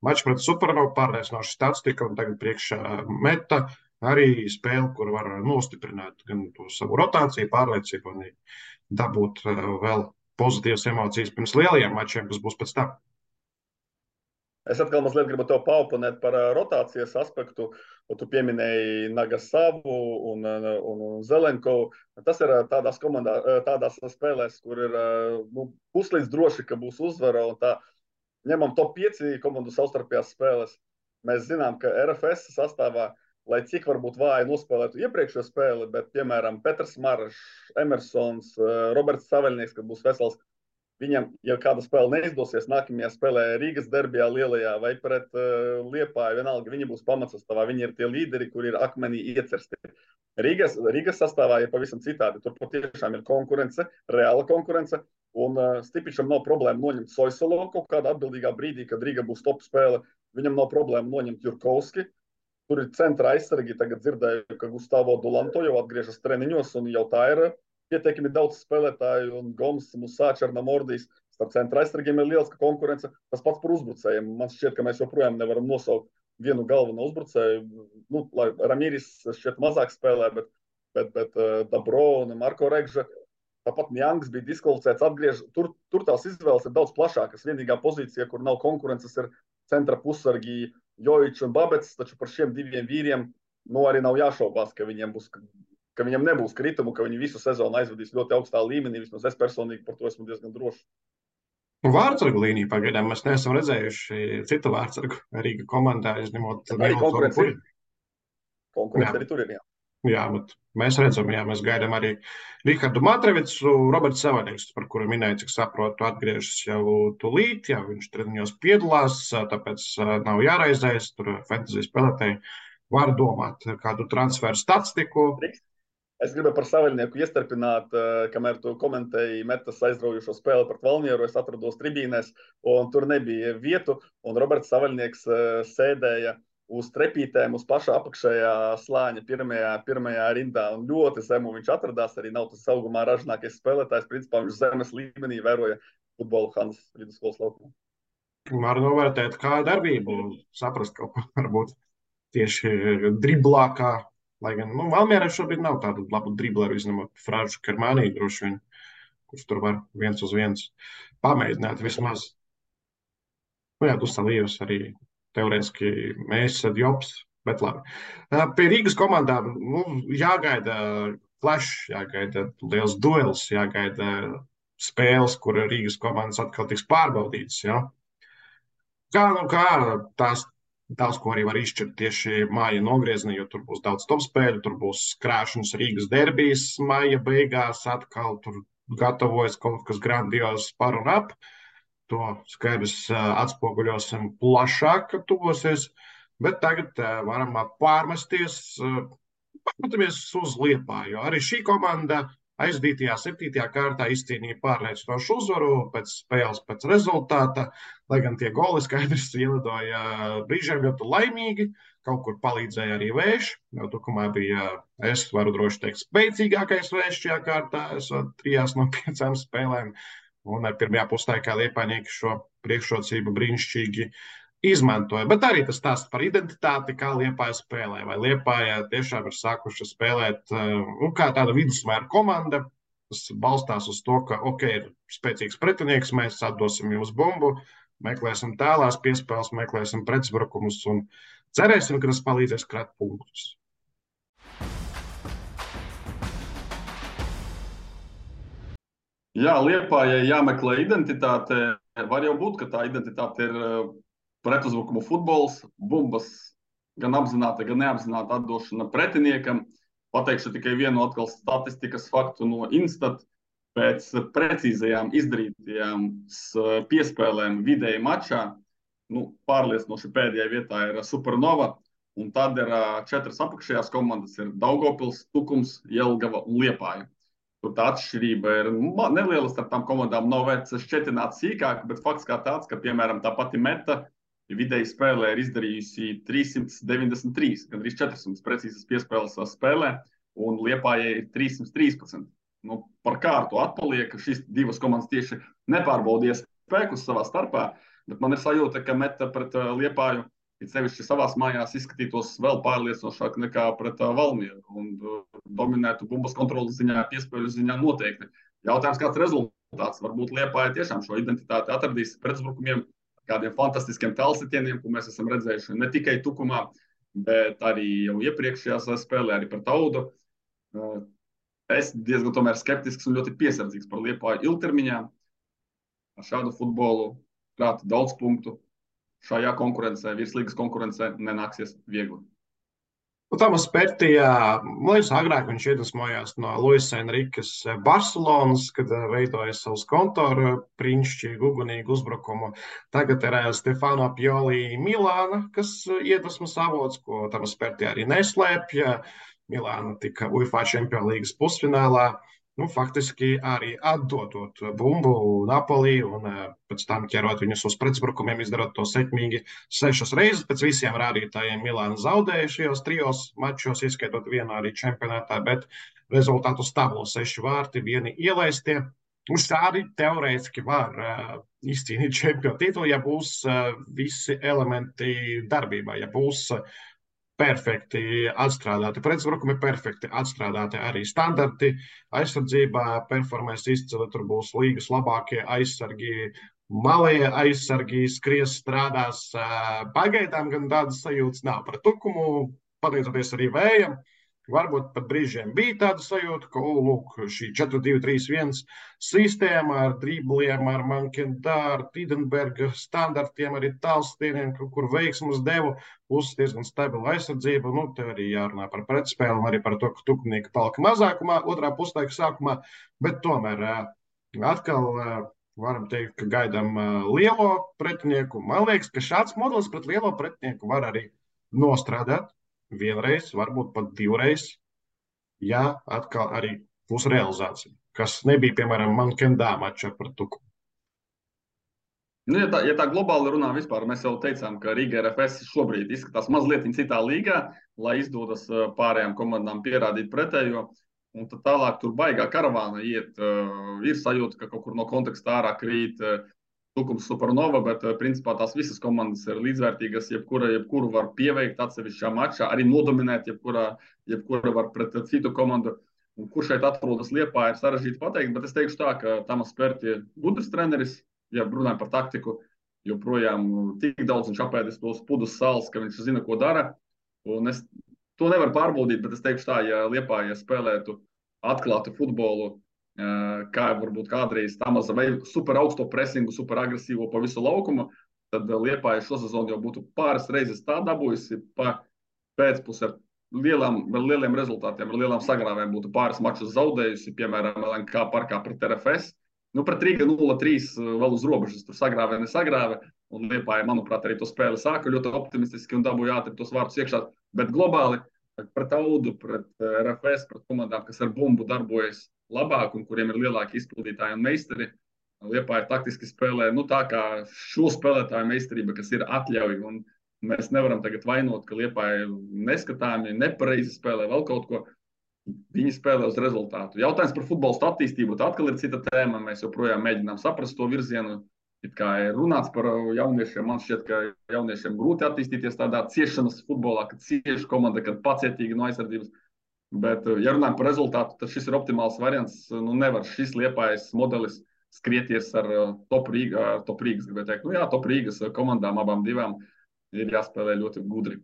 Speaker 1: mačs pret Supernovu pārliecinoši statistika, un tagad priekšā meta arī spēle, kur var nostiprināt gan to savu rotāciju, pārliecību un dabūt vēl pozitīvas emocijas pirms lielajiem mačiem, kas būs pēc tam.
Speaker 2: Es atkal mazliet gribu tev paoponēt par rotācijas aspektu. Tu pieminēji Nagasavu un Zelenkovu. Tas ir tādās spēlēs, kur ir puslīdz droši, ka būs uzvara. Un tā ņemam top 5 komandu savstarpējās spēles. Mēs zinām, ka RFS sastāvā, lai cik varbūt vāji nospēlētu iepriekšējo spēli, bet, piemēram, Petrs Marašs, Emersons, Roberts Saveļnieks, kad būs vesels, viņam, ja kāda spēle neizdosies, nākamajā spēlē Rīgas derbijā lielajā vai pret Liepāju, vienalga, viņi būs pamatsastāvā, viņi ir tie līderi, kuri ir akmenī iecersti. Rīgas sastāvā ir pavisam citādi. Tur patiešām ir konkurence, reāla konkurence, un Stipičam nav problēma noņemt Soisolo kaut kādā atbildīgā brīdī, kad Rīga būs top spēle. Viņam nav problēma noņemt Jurkovski. Tur ir centra aizsargi, tagad dzirdēju, ka Gustavo Dulanto jau atgriežas treniņos, un jau tā ir pietiekami daudz spēlētāju, un Goms, Musā, Černamordijs, starp centra aizsargiem ir liels konkurence. Tas pats par uzbrucējiem. Man šķiet, ka mēs joprojām nevaram nosaukt vienu galveno uzbrucēju. Lai Ramīris šķiet mazāk spēlē, bet Dabro un Marko Regža, tāpat Mjangs bija diskvalificēts, atgriež. Tur tās izvēles ir daudz plašākas. Vienīgā pozīcija, kur nav konkurences, ir centra pussargi Jojičs un Babets, taču par šiem 2 vīriem arī nav jāšaubās, ka viņiem nebūs kritumu, ka viņi visu sezonu aizvadīs ļoti augstā līmenī. Vismaz es personīgi par to esmu diezgan drošs.
Speaker 1: Vārdsargu līniju pagaidām mēs neesam redzējuši citu vārdsargu Rīga komandā, izņemot
Speaker 2: arī konkurence arī tur ir, jā.
Speaker 1: Jā, bet mēs redzam, mēs gaidām arī Rihardu Matrevicu, Roberts Saveļnieks, par kuru minēju, cik saprotu, atgriežas jau tūlīt, viņš treniņos piedalās, tāpēc nav jāraizējas, tur fantasy spēlētāji var domāt kādu transferu statistiku.
Speaker 2: Es gribēju par Saveļnieku iestarpināt, kamēr tu komentēji Metas aizraujošo spēli pret Valmieru, es atrados tribīnēs, un tur nebija vietu, un Roberts Saveļnieks sēdēja uz trepītēm, uz pašā apakšējā slāņa pirmajā rindā, un ļoti zemu viņš atradās, arī nav tas augumā ražinākais spēlētājs, principā viņš zemes līmenī vēroja futbolu Hanas vidusskolas laukumā.
Speaker 1: Var novērtēt kā darbību, saprast kaut ko varbūt tieši driblākā, lai gan, Valmierā šobrīd nav tādu labu dribleru, izņemot Fražu Kermānī droši vien, kurš tur var 1 uz 1 pamēģināt vismaz. Dusalījus arī teorētiski mēs esam Jops, bet labi. Pie Rīgas komandām jāgaida flash, jāgaida liels duels, jāgaida spēles, kur Rīgas komandas atkal tiks pārbaudītas. Ja? Kā tās daudz ko arī var izšķirt tieši māja nogriezienī, jo tur būs daudz top spēļu, tur būs krāšņas Rīgas derbijas māja beigās, atkal tur gatavojas kaut kas grandios par un ap. To skaidrs atspoguļosim plašāk, kad tuvosies, bet tagad varam pārmesties, paskatāmies uz Liepāju, jo arī šī komanda aizdītajā 7. kārtā izcīnīja pārliecinošu uzvaru pēc spēles, pēc rezultāta, lai gan tie goli skaidrs ielidoja brīžiem ļoti laimīgi, kaut kur palīdzēja arī vējš, jo tukumā bija, es varu droši teikt, spēcīgākais vējš šajā kārtā, esot 3 no 5 spēlēm, un pirmajā puslaikā Liepājnieki šo priekšrocību brīnišķīgi izmantoja. Bet arī tas stāsts par identitāti, kā Liepāja spēlē. Vai Liepāja tiešām ir sākuši spēlēt kā tāda vidusmēra komanda, kas balstās uz to, ka, ir spēcīgs pretinieks, mēs atdosim jums bumbu, meklēsim tālās piespēles, meklēsim pretuzbrukumus un cerēsim, ka tas palīdzēs krāt punktus.
Speaker 2: Jā, Liepājai jāmeklē identitāte. Var jau būt, ka tā identitāte ir pretuzbrukumu futbols, bumbas gan apzināta, gan neapzināta atdošana pretiniekam. Pateikšu tikai vienu atkal statistikas faktu no Instat. Pēc precīzajām izdarītajām piespēlēm vidēji mačā, pārliecinoši pēdējā vietā ir Supernova, un tad ir 4 apakšējās komandas, ir Daugavpils, Tukums, Jelgava un Liepāja. Tur tā atšķirība ir neliela starp tām komandām, nav vērts šķetināt sīkāk, bet fakts kā tāds, ka, piemēram, tā pati Meta vidēji spēlē ir izdarījusi 393, gandrīz 400 precīzas piespēles spēlē, un Liepājai ir 313. Par kārtu atpaliek, ka šīs 2 komandas tieši nepārbaudīja spēkus savā starpā, bet man ir sajūta, ka Meta pret Liepāju, it sevišķi savās mājās, izskatītos vēl pārliecinošāk nekā pret Valmieru un dominētu bumbas kontrolas ziņā, piespēļu ziņā noteikti. Jautājums, kāds rezultāts? Varbūt Liepāja tiešām šo identitāti atradīs pretuzbrukumiem, kādiem fantastiskiem tālsitieniem, ko mēs esam redzējuši ne tikai Tukumā, bet arī jau iepriekšējās spēlē, arī pret Audu. Es diezgan tomēr skeptisks un ļoti piesardzīgs par Liepāju ilgtermiņā. Ar šādu futbolu krāt daudz punktu. Šajā konkurencē, virslīgas konkurencē nenāksies viegli.
Speaker 1: Tomas Pērtijā, man liekas, agrāk viņš iedvesmojās no Luisa Enrikas Barcelonas, kad veidoja savus kontoru brīnišķīgu, ugunīgu uzbrukumu. Tagad ir Stefano Pioli Milāna, kas iedvesmas avots, ko Tomas Pērtijā arī neslēpja. Milāna tika UEFA Champions Līgas pusfinālā. Faktiski arī atdodot bumbu Napoli un pēc tam ķerot viņus uz pretuzbrukumiem, izdarot to sekmīgi 6 reizes. Pēc visiem rādītājiem Milāna zaudēja šajos 3 mačos, ieskaitot vienu arī čempionātā, bet rezultātu stabilo 6 vārti, vieni ielaistie. Un šādi teorētiski var izcīnīt čempionu titulu, ja būs visi elementi darbībā, ja būs perfekti atstrādāti pretuzbrukumi, perfekti atstrādāti arī standarti. Aizsardzībā performēs izcili, tur būs līgas labākie aizsargi, malie aizsargi, skries, strādās. Pagaidām gan tādas sajūtas nav par Tukumu, pateicoties arī vējam. Varbūt pat brīžiem bija tāda sajūta, ka šī 4-2-3-1 sistēma ar dribliem, ar Mankendāru, Tidenberga standartiem, arī tālstieniem, kur veiksmus devu, plus diezgan stabila aizsardzība. Te arī jārunā par pretspēli un arī par to, ka Tukunieki palika mazākumā otrā puslaika sākumā, bet tomēr atkal varam teikt, ka gaidām lielo pretinieku. Man liekas, ka šāds modelis pret lielo pretinieku var arī nostrādāt. Vienreiz, varbūt pat 2 reizes, ja atkal arī būs realizācija, kas nebija, piemēram, Mankendā mačā par Tukumu.
Speaker 2: Ja tā globāli runā vispār, mēs jau teicām, ka Riga RFS šobrīd izskatās mazliet citā līgā, lai izdodas pārējām komandām pierādīt pretējo, un tad tālāk tur baigā karavāna iet. Ir sajūta, ka kaut kur no konteksta ārā krīt Tukums, Supernova, bet principā tās visas komandas ir līdzvērtīgas, jebkuru var pieveikt atsevišķā mačā, arī nodominēt, jebkura var pret citu komandu. Un kur šeit atrodas Liepāja, ir sarežģīti pateikt, bet es teikšu tā, ka Tomas Pērti ir gudrs treneris, ja runājam par taktiku, joprojām tik daudz viņš apēdis tos pudus sāls, ka viņš zina, ko dara. Un es to nevaru pārbaudīt, bet es teikšu tā, ja Liepāja spēlētu atklātu futbolu, kā varbūt kādreiz tā maza vai super augsto presingu, super agresīvo pa visu laukumu, tad Liepāja šo sezonu jau būtu pāris reizes tā dabūjusi pa pēcpusē ar lieliem rezultātiem, ar lielām sagrāvēm būtu pāris mačus zaudējusi, piemēram, LNK parkā pret RFS. Nu, pret Rīga 0-3 vēl uz robežas, tur sagrāvē, nesagrāvē, un Liepāja, manuprāt, arī to spēli sāka ļoti optimistiski un dabūja ātri tos vārtus iekšā, bet globāli pret Audu, pret RFS, pret komandām, kas ar bumbu darbojas labāk un kuriem ir lielāki izpildītāji un meistari. Liepāja taktiski spēlē, nu tā kā šo spēlētāju meistarība, kas ir atļauj, un mēs nevaram tagad vainot, ka Liepāja neskatāmi, nepareizi spēlē vēl kaut ko. Viņi spēlē uz rezultātu. Jautājums par futbolu attīstību, tā atkal ir cita tēma. Mēs joprojām mēģinām saprast to virzienu. It kā ir runāts par jauniešiem, man šķiet, ka jauniešiem grūti attīstīties tādā ciešanas futbolā, kad cieši komanda, kad pacietīgi no aizsardzības. Bet, ja runājam par rezultātu, tad šis ir optimāls variants. Nu, nevar šis Liepājas modelis skrieties ar top Rīgas, gribētu teikt. Nu jā, top Rīgas komandām abām divām ir jāspēlē ļoti gudri.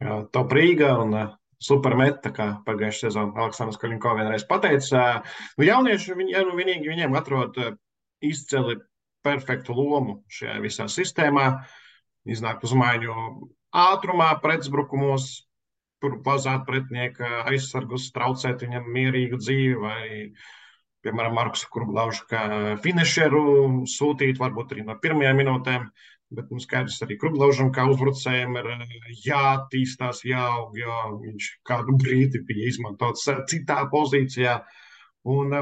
Speaker 1: Jā, top Rīga un supermeta, kā pagājušajā sezonā Aleksandrs Kaļinko vienreiz pateica. Nu, jaunieši, viņiem atrod izcili perfektu lomu šajā visā sistēmā. Iznākt uz maiņu ātrumā, pretuzbrukumos, pazāt pretinieka aizsargus, traucēt viņam mierīgu dzīvi vai, piemēram, Markusu Kurblaušu kā finišeru sūtīt, varbūt arī no pirmajām minūtēm. Bet mums skaidrs arī Kurblaužam, kā uzbrucējiem ir jātīstās, jāaug, jo viņš kādu brīdi bija izmantots citā pozīcijā. Un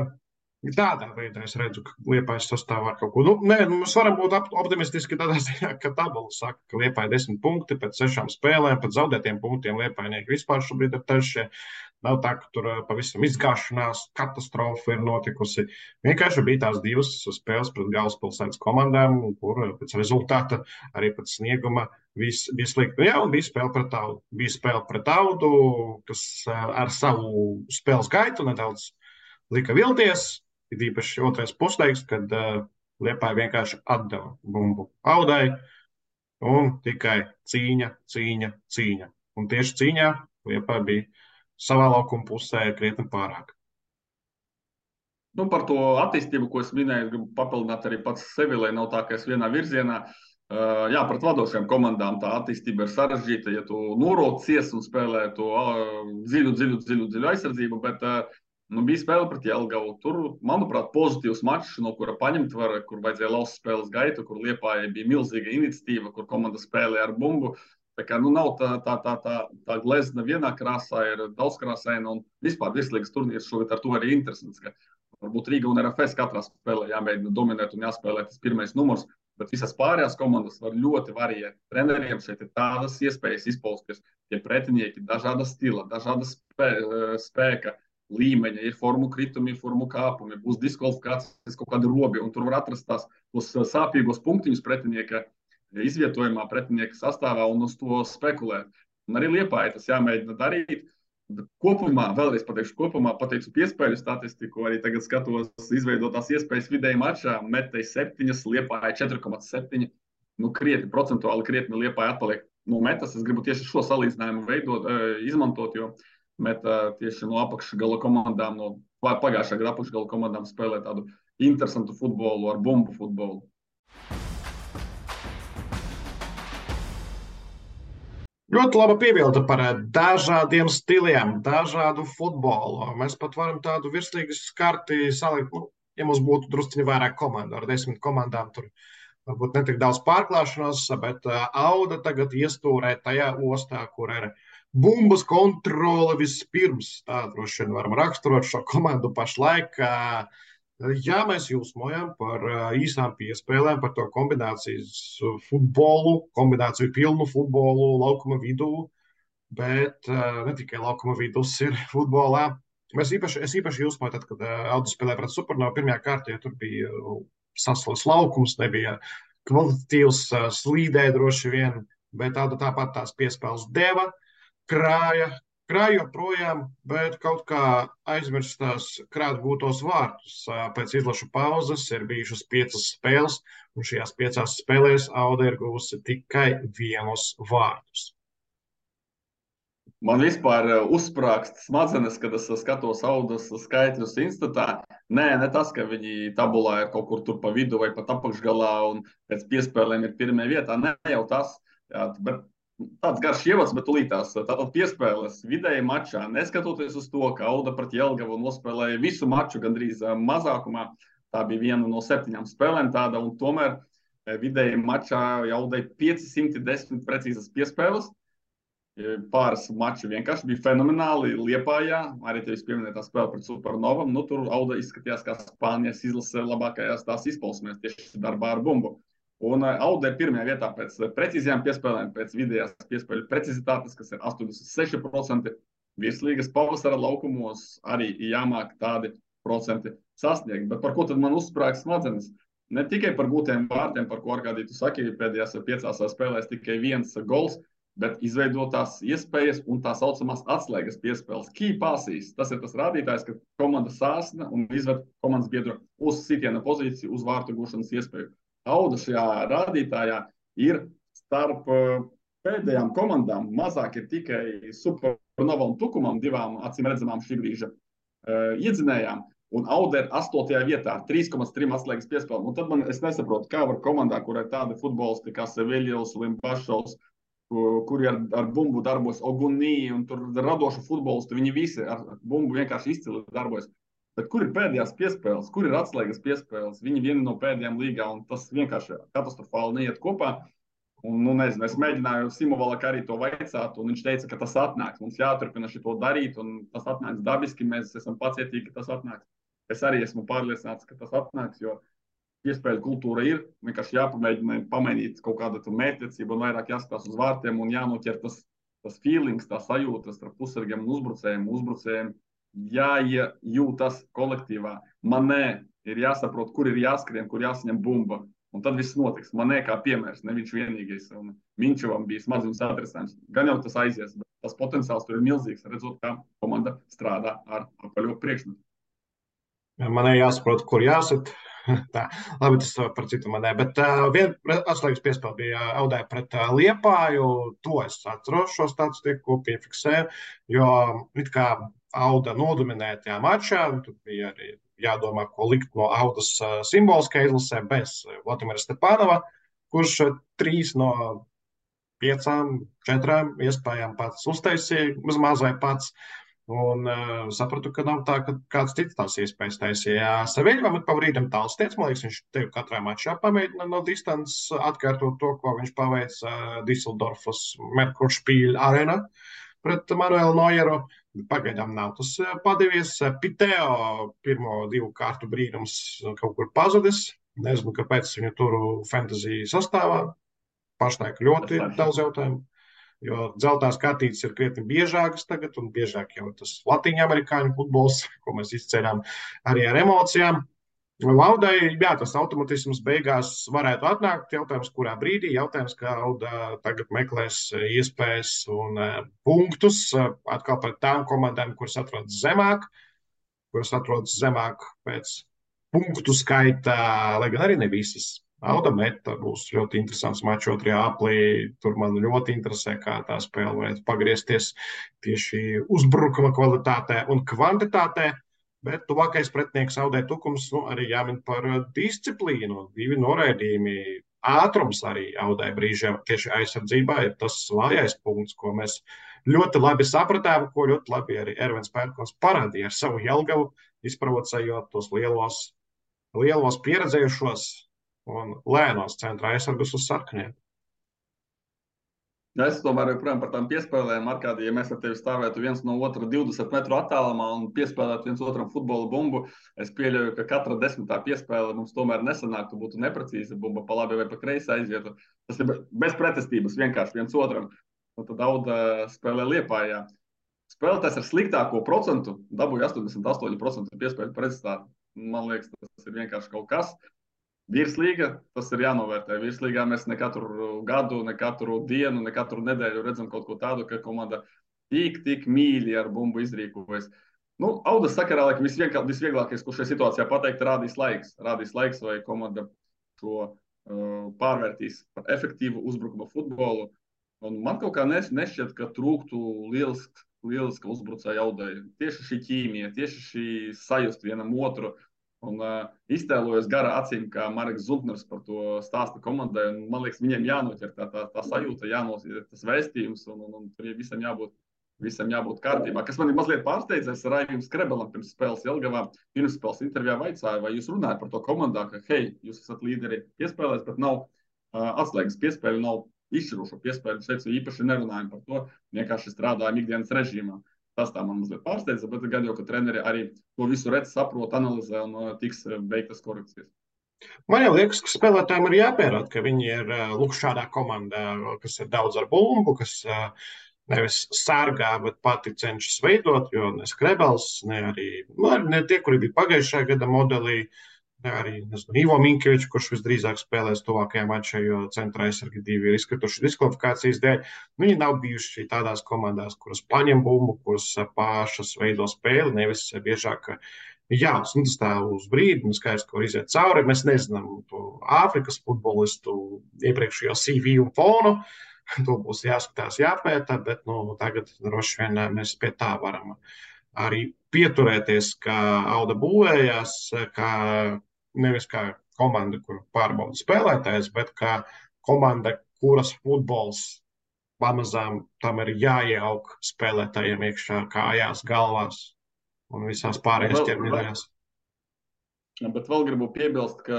Speaker 1: tādā veidā es redzu, ka Liepājas sastāvā ar kaut ko. Mēs varam būt optimistiski tādā ziņā, ka tabula saka, ka Liepāja 10 punkti pēc 6 spēlēm, pēc zaudētiem punktiem Liepājnieki vispār šobrīd ir trešie. Nav tā, ka tur pavisam izgāšanās, katastrofa ir notikusi. Vienkārši bija tās 2 spēles pret galvaspilsētas komandām, kur pēc rezultāta, arī pēc snieguma viss bija slikti. Jā, un bija spēle pret Audu. Bija spēle pret Audu, kas ar savu spēles gaitu nedaudz lika vilties. Ir īpaši otrais puslaiks, kad Liepāja vienkārši atdeva bumbu Audai un tikai cīņa. Un tieši cīņā Liepāja bija savā laukuma pusē krietni pārāk.
Speaker 2: Nu, par to attīstību, ko es minēju, gribu papildināt arī pats sevi, lai nav tā, ka es vienā virzienā. Jā, pret vadošajām komandām tā attīstība ir sarežģīta, ja tu norocies un spēlē to dziļu aizsardzību, bet bija spēle pret Jelgavu. Tur, manuprāt, pozitīvs mačs, no kura paņemt var, kur vajadzēja laust spēles gaitu, kur Liepājai bija milzīga iniciatīva, kur komanda spēlē ar bumbu. Tā kā nav tā glezna vienā krāsā, ir daudzkrāsaina un vispār virslīgas turnīrs šogad ar to arī interesants, ka varbūt Rīga un RFS katrā spēlē jāmēģina dominēt un jāspēlē tas pirmais numurs, bet visas pārējās komandas var ļoti variēt. Treneriem šeit ir tādas iespējas izpausties, tie pretinieki dažāda stila, dažāda spēka līmeņa, ir formu kritumi, ir formu kāpumi, būs diskvalifikācijas kaut kādi robi, un tur var atrast tos sāpīgos punktiņus pretinieka izvietojumā, pretinieka sastāvā un uz to spekulēt. Un arī Liepāja tas jāmēģina darīt. Bet kopumā, vēlreiz pateicu piespēļu statistiku, arī tagad skatos izveidotās iespējas vidēji mačā, metēji 7, Liepāja 4,7. Nu, procentuāli krietni Liepāja atpaliek no metas. Es gribu tieši šo salīdzinājumu izmantot, jo meta tieši no apakšgala komandām, no pagājušā gada apakšgala komandām spēlē tādu interesantu futbolu ar bumbu futbolu.
Speaker 1: Ļoti laba piebilde par dažādiem stiliem, dažādu futbolu. Mēs pat varam tādu virslīgas karti salikt, ja mums būtu drusciņi vairāk komandu. Ar 10 komandām tur varbūt netik daudz pārklāšanos, bet Auda tagad iestūrē tajā ostā, kur ir bumbas kontrole vispirms. Tā droši vien varam raksturot šo komandu pašlaik. Jā, mēs jūsmojam par īsām piespēlēm, par to kombinācijas futbolu, kombināciju pilnu futbolu laukuma vidū, bet ne tikai laukuma vidus ir futbolā. Es īpaši jūsmoju tad, kad Audu spēlēja pret Supernovu pirmajā kārtā, jo tur bija saslis laukums, nebija kvalitatīvs, slīdē droši vien, bet Auda tāpat tās piespēles deva, krāja joprojām, bet kaut kā aizmirstās krāt gūtos vārtus. Pēc izlašu pauzes ir bijušas 5 spēles, un šajās 5 spēlēs Auda ir guvusi tikai 1 vārtus.
Speaker 2: Man vispār uzsprāgst smadzenes, kad es skatos Audas skaitļus instatā. Ne tas, ka viņi tabulā ir kaut kur tur pa vidu vai pat apakšgalā un pēc piespēlēm ir pirmajā vietā. Ne jau tas, jā, bet tāds garš ievads, bet tūlītās. Tātad piespēles vidēji mačā, neskatoties uz to, ka Auda pret Jelgavu nospēlēja visu maču gandrīz mazākumā. Tā bija viena no 7 spēlēm tāda, un tomēr vidēji mačā Audai 510 precīzas piespēles. Pāris mači vienkārši bija fenomenāli Liepājā. Arī tevis pieminētā spēle pret Supernovam. Nu, tur Auda izskatījās kā Spānijas izlase labākajās tās izpausmēs tieši darbā ar bumbu. Un Auda ir pirmajā vietā pēc precīzajām piespēlēm, pēc vidējās piespēļu precizitātes, kas ir 86%. Virslīgas pavasara laukumos arī jāmāk tādi procenti sasniegt. Bet par ko tad man uzsprāg smadzenes? Ne tikai par gūtiem vārtiem, par ko Arkādī tu saki, pēdējās 5 spēlēs tikai 1 gols, bet izveidotās iespējas un tā saucamās atslēgas piespēles. Key passes. Tas ir tas rādītājs, ka komanda sāsna un izved komandas biedru uz sitiena pozīciju, uz vārtu gūšanas iespēju. Auda šajā rādītājā ir starp pēdējām komandām. Mazāk ir tikai Supernova un Tukumam, 2 acīm redzamām šī brīža iedzinējām. Un Auda ir 8. vietā ar 3,3 atslēgas piespēlēm. Un tad es nesaprotu, kā var komandā, kur ir tādi futbolisti kā Seviļos, Limbašovs, kuri ar bumbu darbojas, Ogunī un tur radošu futbolistu, viņi visi ar bumbu vienkārši izcili darbojas. Bet kur ir pēdējās piespēles, kur ir atslēgas piespēles? Viņi vieni no pēdējām līgā, un tas vienkārši katastrofāli neiet kopā. Un, nu, nezinu, es mēģināju Simovalak arī to vaicāt, un viņš teica, ka tas atnāks. Mums jāturpina šito darīt, un tas atnāks dabiski, mēs esam pacietīgi, ka tas atnāks. Es arī esmu pārliecināts, ka tas atnāks, jo iespēju kultūra ir, vienkārši jāpamēģina pamainīt kaut kādu mērķtiecību un vairāk jāskatās uz vārtiem un jānoķer tas feelings, tā sajūta starp pusargiem un uzbrucējiem jāiejūtas kolektīvā. Manē ir jāsaprot, kur ir jāskrien, kur jāsaņem bumba. Un tad viss notiks. Manē kā piemērs, ne viņš vienīgais. Un Minčevam bija smadziņas atrisinājums. Gan jau tas aizies, bet tas potenciāls tur ir milzīgs, redzot, kā komanda strādā ar apaļo priekšmetu.
Speaker 1: Manē jāsaprot, kur jāsit. Tā, labi, tas par citu manē. Bet viena atslēgas piespēle bija Audai pret Liepāju. To es atceros, šo statistiku piefiksēju, jo it kā Auda nodominēja tajā mačā. Tur bija arī jādomā, ko likt no Audas simboliskā izlasē bez Vladimira Stepanova, kurš 3 no 5, 4 iespējām pats uztaisīja, maz vai pats. Un sapratu, ka nav tā, ka kāds cits tās iespējas taisīja. Seviļam ir pa brīdim tāls tiec, man liekas, viņš tev katrā mačā pamēģina no distances atkārtot to, ko viņš paveic Düsseldorfas Merkuršpīļa arēnā pret Manuelu Nojeru. Pagaidām nav tas padevies. Piteo pirmo 2 kārtu brīnums kaut kur pazudis. Nezinu, kāpēc viņu tur fantasy sastāvā. Pašlaik ļoti daudz jautājumu. Jo dzeltās kartītes ir krietni biežākas tagad, un biežāk jau tas latīņu amerikāņu futbols, ko mēs izceļām arī ar emocijām. Audai, jā, tas automatisms beigās varētu atnākt. Jautājums, kurā brīdī? Jautājums, kā Auda tagad meklēs iespējas un punktus atkal pret tām komandām, kuras atrodas zemāk pēc punktu skaita, lai gan arī ne visas. Auda meta būs ļoti interesants mačs 2. aplī. Tur man ļoti interesē, kā tā spēle varētu pagriezties tieši uzbrukuma kvalitātē un kvantitātē. Bet tuvākais pretinieks Audai Tukums arī jāmin par disciplīnu. 2 noraidījumi. Ātrums arī Audai brīžiem tieši aizsardzībā ir tas vājais punkts, ko mēs ļoti labi sapratām, ko ļoti labi arī Ervins Pērkons parādīja ar savu Jelgavu, izprovocējot tos lielos pieredzējušos un lēnos centra aizsargus uz sarkaniem.
Speaker 2: Es tomēr joprojām par tām piespēlēm, Arkādī, ja mēs ar tevi stāvētu viens no otra 20 metru attālumā un piespēlētu viens otram futbola bumbu, es pieļauju, ka katra 10. piespēle mums tomēr nesanāktu, būtu neprecīza bumba, pa labi vai pa kreisi aizietu. Tas ir bez pretestības vienkārši viens otram. Un tad Auda spēlē Liepājā. Spēlētājs ar sliktāko procentu dabūja 88% piespēļu precizitāti. Man liekas, tas ir vienkārši kaut kas. Virslīga, tas ir jānovērtē. Virslīgā mēs ne katru gadu, ne katru dienu, ne katru nedēļu redzam kaut ko tādu, ka komanda tik mīļi ar bumbu izrīkojas. Nu, Audas sakarā, laikam, visvieglākais, ko šajā situācijā pateikt, rādīs laiks. Rādīs laiks, vai komanda šo pārvērtīs par efektīvu uzbrukuma futbolu. Un man kaut kā nešķiet, ka trūktu lieliska uzbrucēja audēja. Tieši šī ķīmija, tieši šī sajust vienam otru. Un iztēlojos gara acīm, kā Marks Zubners par to stāsta komandai. Un, man liekas, viņiem jānoķer tā sajūta, jānoķer tas vēstījums, un tur visam jābūt kārtībā. Kas man ir mazliet pārsteidzējis ar Raiviju Skrebelam pirms spēles Jelgavā. Pirms spēles intervijā vaicāja, vai jūs runājat par to komandā, ka, hei, jūs esat līderi piespēlēs, bet nav atslēgas piespēļu, nav izšķirošo piespēļu. Es teicu, īpaši nerunājam par to, vienkārši strādājam ikdienas režīmā. Tas tā man mazliet pārsteidza, bet gan jau, ka treneri arī to visu redz, saprot, analizē un tiks veiktas korekcijas.
Speaker 1: Man jau liekas, ka spēlētājiem ir jāpierāda, ka viņi ir lūk šādā komandā, kas ir daudz ar bumbu, kas nevis sārgā, bet pati cenšas veidot, jo ne Skrebels, ne tie, kuri bija pagājušajā gada modelī, arī Ivo Minkevičs, kurš visdrīzāk spēlēs tuvākajā mačā, jo centra aizsargi divi ir izkrituši diskvalifikācijas dēļ. Viņi nav bijuši tādās komandās, kuras paņem bumbu, kuras pašas veido spēli, nevis biežāk. Jā, un tas tā uz brīdi, un skaidrs, ka var iziet cauri. Mēs nezinām to Āfrikas futbolistu iepriekšējo CV un fonu. To būs jāskatās, jāpēta, bet tagad droši vien mēs pie tā varam arī pieturēties, kā Auda būvējās, kā nevis kā komanda, kur pārbauda spēlētājs, bet kā komanda, kuras futbols pamazām tam ir jāieaug spēlētājiem iekšā, kājās, galvās un visās pārējās ķermeņdaļās.
Speaker 2: Bet vēl gribu piebilst, ka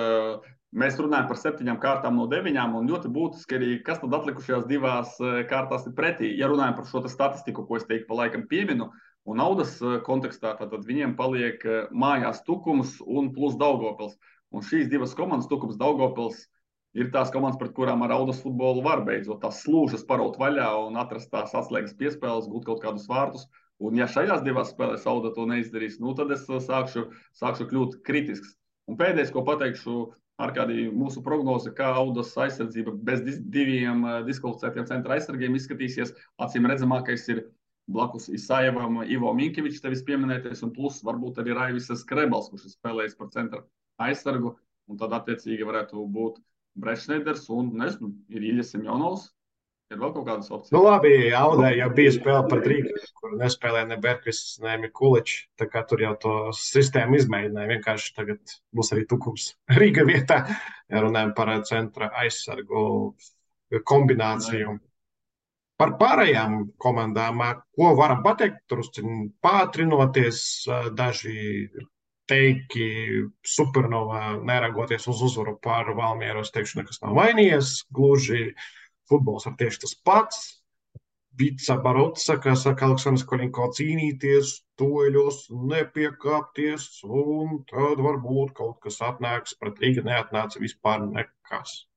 Speaker 2: mēs runājam par 7 kārtām no 9, un ļoti būtiski arī, kas tad atlikušajās 2 kārtās ir pretī. Ja runājam par šo statistiku, ko es teiktu pa laikam pieminu, un Audas kontekstā, tad viņiem paliek mājās Tukums un plus Daugavpils. Un šīs 2 komandas, Tukums, Daugavpils, ir tās komandas, pret kurām ar Audas futbolu var beidzot tās slūžas paraut vaļā un atrast tās atslēgas piespēles, gūt kaut kādus vārtus. Un ja šajās 2 spēlēs Auda to neizdarīs, tad es sākšu kļūt kritisks. Un pēdējais, ko pateikšu, Arkādī, mūsu prognoze, kā Audas aizsardzība bez 2 diskvalificētiem centra aizsargiem izskatīsies, acīm redzamākais ir blakus Isajevam Ivo Minkevičs, tevis pieminētais, un plus varbūt arī Raivis Skrebels, kurš ir spēlējis par centra aizsargu, un tad attiecīgi varētu būt Brešneiders un, nezinu, ir Iļas Semjonovs. Ir vēl kaut kādas opcijas?
Speaker 1: Labi, Audai jau bija spēle par Rīgu, kur nespēlēja ne Berkvists, ne Mikuličs. Tā kā tur jau to sistēmu izmēģināja. Vienkārši tagad būs arī Tukums Rīga vietā, ja runājam par centra aizsargu kombināciju. Par pārējām komandām, ko varam pateikt, tur pātrinoties, daži teiki Supernovā, neragoties uz uzvaru pār Valmieru, es teikšu, nekas nav mainījies, gluži futbols ir tieši tas pats. Vica Barotsa, kā saka Aleksandrs Koļinko, cīnīties, toļos, nepiekāpties, un tad varbūt kaut kas atnāks, pret Rīga neatnāca vispār nekas.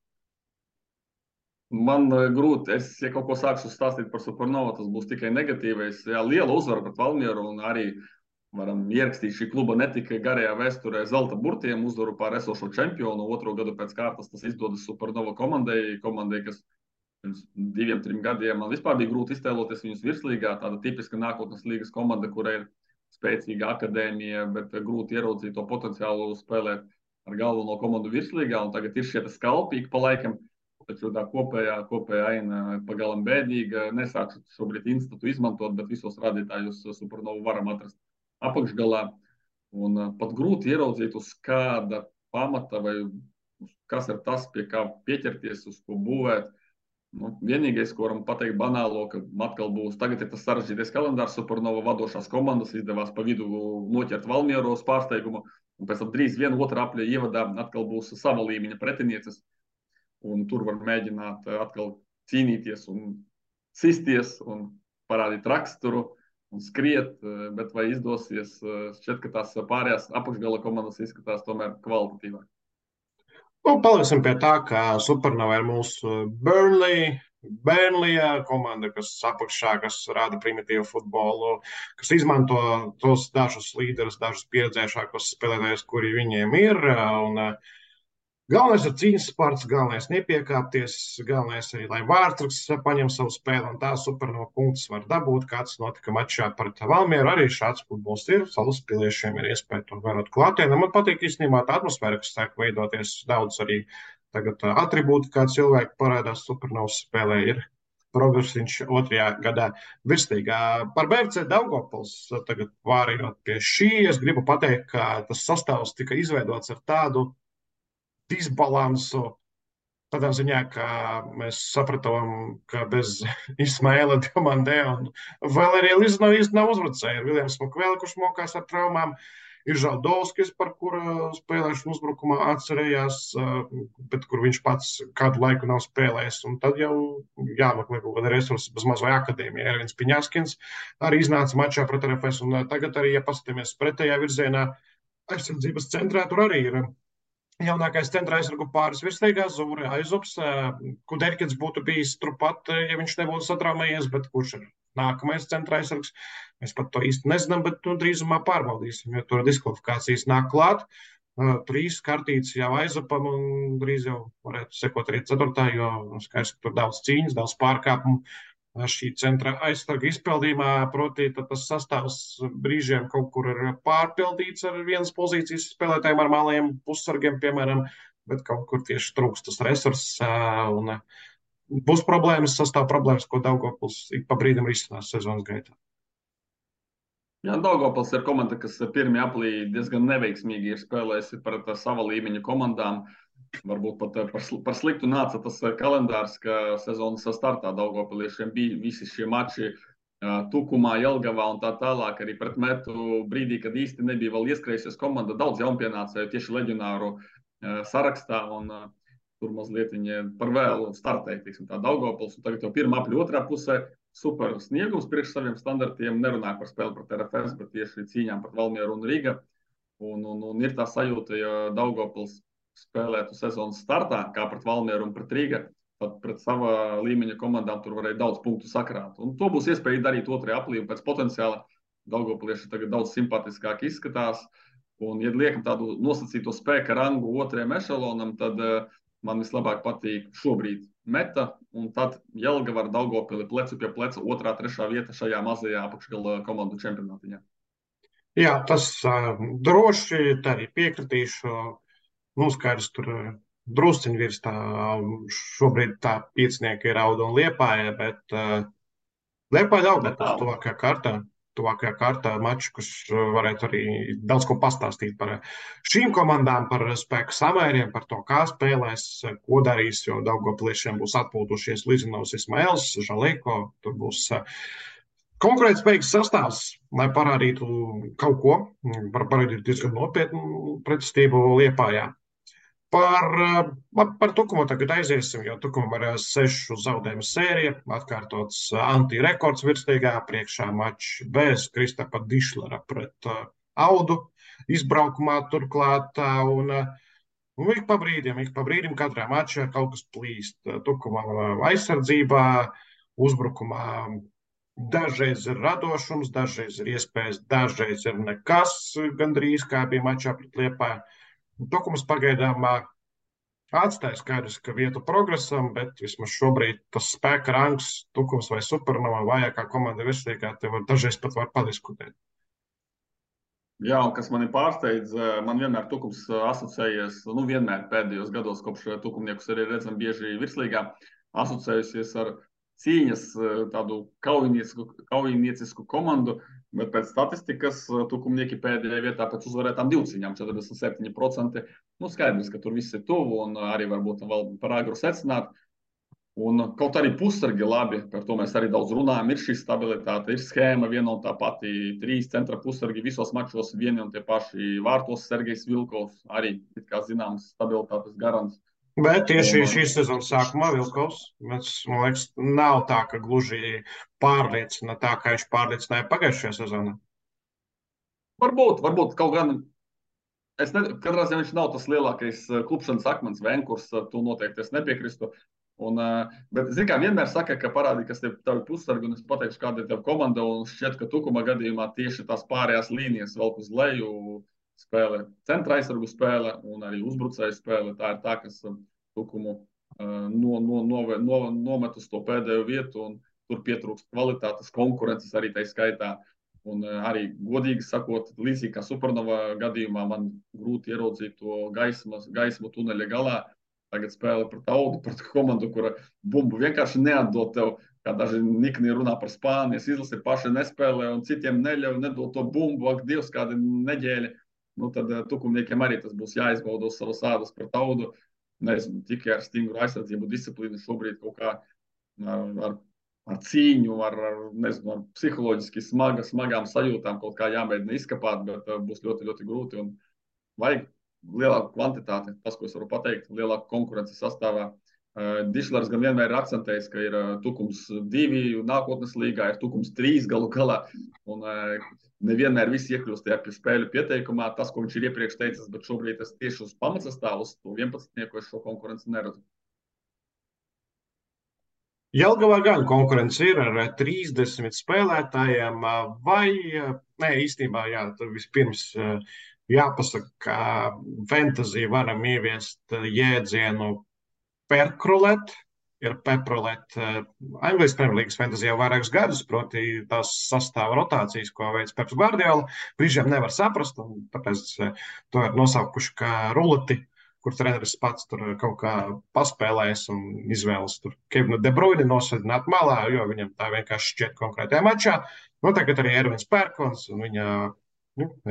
Speaker 2: Man grūti, ja kaut ko sākšu stāstīt par Supernovu, tas būs tikai negatīvais. Jā, liela uzvara pret Valmieru, un arī varam ierakstīt šī kluba ne tikai garajā vēsturē zelta burtiem uzvaru pār esošo čempionu, 2. gadu pēc kārtas tas izdodas Supernova komandai, kas pirms 2-3 gadiem man vispār bija grūti iztēloties viņus virslīgā. Tāda tipiska nākotnes līgas komanda, kurai ir spēcīga akadēmija, bet grūti ieraudzīt to potenciālu spēlēt ar galveno komandu virslīgā. Un tagad ir šie skalpīgi pa laikam, taču tā kopējā aina pagalam bēdīga. Nesākšu šobrīd institūtu izmantot, bet visos rādītājus Supernovu varam atrast apakšgalā. Un pat grūti ieraudzīt, uz kāda pamata vai kas ir tas, pie kā pieķerties, uz ko būvēt. Vienīgais, ko varam pateikt banālo, ka atkal būs, tagad ir tas sarežģītais kalendārs, Supernova vadošās komandas izdevās pa vidu noķert Valmieru uz pārsteigumu, un pēc tam drīz 1. apļa ievadā atkal būs sava līmeņa pretinieces, un tur var mēģināt atkal cīnīties un sisties un parādīt raksturu un skriet, bet vai izdosies, šķiet, ka tās pārējās apakšgala komandas izskatās tomēr kvalitatīvāk.
Speaker 1: Paliksim pie tā, ka Supernova ir mūsu Burnleyā komanda, kas apakšā, kas rāda primitīvu futbolu, kas izmanto tos dažus līderus, dažus pieredzējušākos spēlētājus, kuri viņiem ir. Un galvenais ir cīņas sports, galvenais nepiekāpties, galvenais arī, lai Vārtsargs paņem savu spēli, un tā Supernova punktus var dabūt, kāds notika mačā pret Valmieru. Arī šāds futbols ir, Salaspiliešiem ir iespēja to vērot klātienē. Man patīk īstenībā tā atmosfēra, kas sāk veidoties daudz arī tagad atribūti, kā cilvēki parādās Supernovas spēlē, ir progresiņš otrajā gadā virsīgā. Par BFC Daugavpils tagad pārējot pie šī, es gribu pateikt, ka tas sastāvs tika izveidots ar tādu disbalansu. Tādā ziņā, ka mēs sapratām, ka bez Ismaila Diamandē un vēl arī Lizno īsti nav uzbrucēji. Ir Viljams Makvēli, kurš mokās ar traumām. Ir Žaldovskis, par kura spēlēšanu uzbrukumā atcerējās, bet kur viņš pats kādu laiku nav spēlējis. Un tad jau jāmeklē kaut kāda resursa bez maz vai akadēmija. Ervins Piņaskins arī iznāca mačā pret RFS. Un tagad arī, ja paskatāmies pretējā virzienā, aizsardzības centrā tur arī ir jaunākais centra aizsargu pāris virsīgā Zūre Aizups. Kuderkins būtu bijis turpat, ja viņš nebūtu satraumējies, bet kurš ir nākamais centra aizsargs? Mēs pat to īsti nezinām, bet drīzumā pārbaudīsim, jo tur diskvalifikācijas nāk klāt. 3 kartītes jau Aizupam un drīz jau varētu sekot arī 4. jo skaidrs, ka tur daudz cīņas, daudz pārkāpumu. Šī centra aizsarga izpildījumā, proti, tas sastāvs brīžiem kaut kur ir pārpildīts ar vienas pozīcijas spēlētājiem, ar malējiem pussargiem, piemēram, bet kaut kur tieši trūkst tas resurss. Un būs problēmas, sastāv problēmas, ko Daugavpils ik pa brīdim risinās sezonas gaitā.
Speaker 3: Jā, Daugavpils ir komanda, kas pirmie aplī diezgan neveiksmīgi ir spēlējusi pret sava līmeņa komandām. Varbūt pat par sliktu nāca tas kalendārs, ka sezonas startā Daugavpiliešiem bija visi šie mači Tukumā, Jelgavā un tā tālāk. Arī pret metu brīdī, kad īsti nebija vēl ieskrējusies komanda, daudz jaunpienācēju tieši leģionāru sarakstā. Un tur mazliet viņi par vēlu startēja, teiksim, tā Daugavpils. Un tagad jau pirmā apļa otrā pusē super sniegums priekš saviem standartiem. Nerunāja par spēli pret RFS, bet tieši cīņām pret Valmieru un Riga. Un ir tā sajūta, ja Daugavpils spēlētu sezonas startā, kā pret Valmieru un pret Rīga, tad pret sava līmeņa komandām tur varēja daudz punktu sakrāt. Un to būs iespēja darīt otrajā aplī, un pēc potenciāla Daugavpilieši tagad daudz simpātiskāk izskatās. Un, ja liekam tādu nosacīto spēka rangu otrajam ešalonam, tad man vislabāk patīk šobrīd Meta, un tad Jelgava ar Daugavpili plecu pie pleca 2., 3. vieta šajā mazajā apakšgala komandu čempionātiņā.
Speaker 1: Jā, tas droši tā arī piekritīšu. Skaidrs, tur drusciņi virs tā šobrīd tā piecinieki ir Auda un Liepāja, bet Liepāja Daugavpils tuvākajā kārtā maču, kas varētu arī daudz ko pastāstīt par šīm komandām, par spēku samēriem, par to, kā spēlēs, ko darīs, jo Daugavpiliešiem būs atpūtušies Lizinovs, Ismails, Žaleko, tur būs konkurētspējīgs sastāvs, lai parādītu kaut ko, parādītu diezgan nopietnu pretestību Liepājā. Par Tukumu tagad aiziesim, jo Tukumam ir 6 zaudējumu sērija, atkārtots anti-rekords virsīgā, priekšā mačs bez Kristapa Dišlera pret Audu izbraukumā turklāt. Un ik pa brīdim katrā mačā kaut kas plīst. Tukumam aizsardzībā, uzbrukumā dažreiz ir radošums, dažreiz ir iespējas, dažreiz ir nekas, gandrīz kā bija mačā pret Liepāju. Tukums pagaidām atstāja skaidrs, ka vietu progresam, bet vismaz šobrīd tas spēka rangs, Tukums vai Supernova vājākā komanda virsīgā, te dažreiz pat var padiskutēt.
Speaker 3: Jā, un kas mani pārsteidz, man vienmēr Tukums asociējies, vienmēr pēdējos gados, kopš Tukumniekus arī redzam bieži virslīgā, asociējusies ar cīņas tādu kaujiniecisku komandu, bet pēc statistikas Tukumnieki pēdējā vietā pēc uzvarētām 2 cīņām, 47%. Skaidrs, ka tur viss ir tuvu un arī varbūt vēl par agru secināt. Un kaut arī pussargi labi, par to mēs arī daudz runājam, ir šī stabilitāte, ir schēma viena un tā pati, 3 centra pussargi visos mačos, vieni un tie paši vārtos Sergejs Vilkovs, arī, kā zināms, stabilitātes garants.
Speaker 1: Bet tieši šīs sezonas sākumā Vilkovs, man liekas, nav tā, ka gluži pārliecina tā, kā viņš pārliecināja pagājušajā sezonā.
Speaker 3: Varbūt kaut gan, katrā ziņā viņš nav tas lielākais klupšanas akmens Venkurs, to noteikti es nepiekristu. Bet, kā vienmēr saka, ka parādi, kas tev tavi pussargi, un es pateikšu, kāda ir tev komanda, un šķiet, ka Tukuma gadījumā tieši tās pārējās līnijas velk uz leju, spēle, centra aizsargu spēle un arī uzbrucēju spēle. Tā ir tā, kas Tukumu nomet uz to pēdējo vietu, un tur pietrūkst kvalitātes, konkurences arī tai skaitā. Un arī, godīgi sakot, līdzīgi kā Supernova gadījumā, man grūti ieraudzīt to gaismu tuneļa galā. tagad spēle pret Audu, pret komandu, kura bumbu vienkārši neatdod tev, kā daži nikni runā par Spānijas izlasi, paši nespēlē un citiem neļauj, nedod to bumbu, ak, Dievs, kādi neģēļi. Nu, tad tukumniekiem arī tas būs jāizbauda uz savas ādas pret Audu. Nezinu, tikai ar stingru aizsardzību disciplīnu šobrīd kaut kā ar cīņu, nezinu, ar psiholoģiski smagām sajūtām kaut kā jāmēģina izkapāt, bet būs ļoti, ļoti grūti un vajag lielāku kvantitāti. Tas, ko es varu pateikt, lielāku konkurenci sastāvā. Dišlers gan vienmēr ir akcentējis, ka ir Tukums 2 nākotnes līgā, ir Tukums 3 galu galā, un nevienmēr viss iekļūst tajā spēļu pieteikumā, tas, ko viņš ir iepriekš teicis, bet šobrīd es tieši uz pamatsastāvu, uz to 11. es šo konkurenci neredzu.
Speaker 1: Jelgavā gan konkurence ir ar 30 spēlētājiem, vai, nē, īstenībā, jā, tad vispirms jāpasaka, ka fantasy varam ieviest jēdzienu perkrulēt, ir peprolēt. Anglijas Premjerlīgas fantasy jau vairākus gadus, proti tās sastāva rotācijas, ko veids Peps Gvardiola. Brīžiem nevar saprast, un tāpēc to ir nosaukuši kā ruleti, kur treneris pats tur kaut kā paspēlēs un izvēlas tur Kevinu De Bruyni nosēdināt malā, jo viņam tā vienkārši šķiet konkrētajā mačā. Nu, tagad arī Ervins Pērkons, un viņa,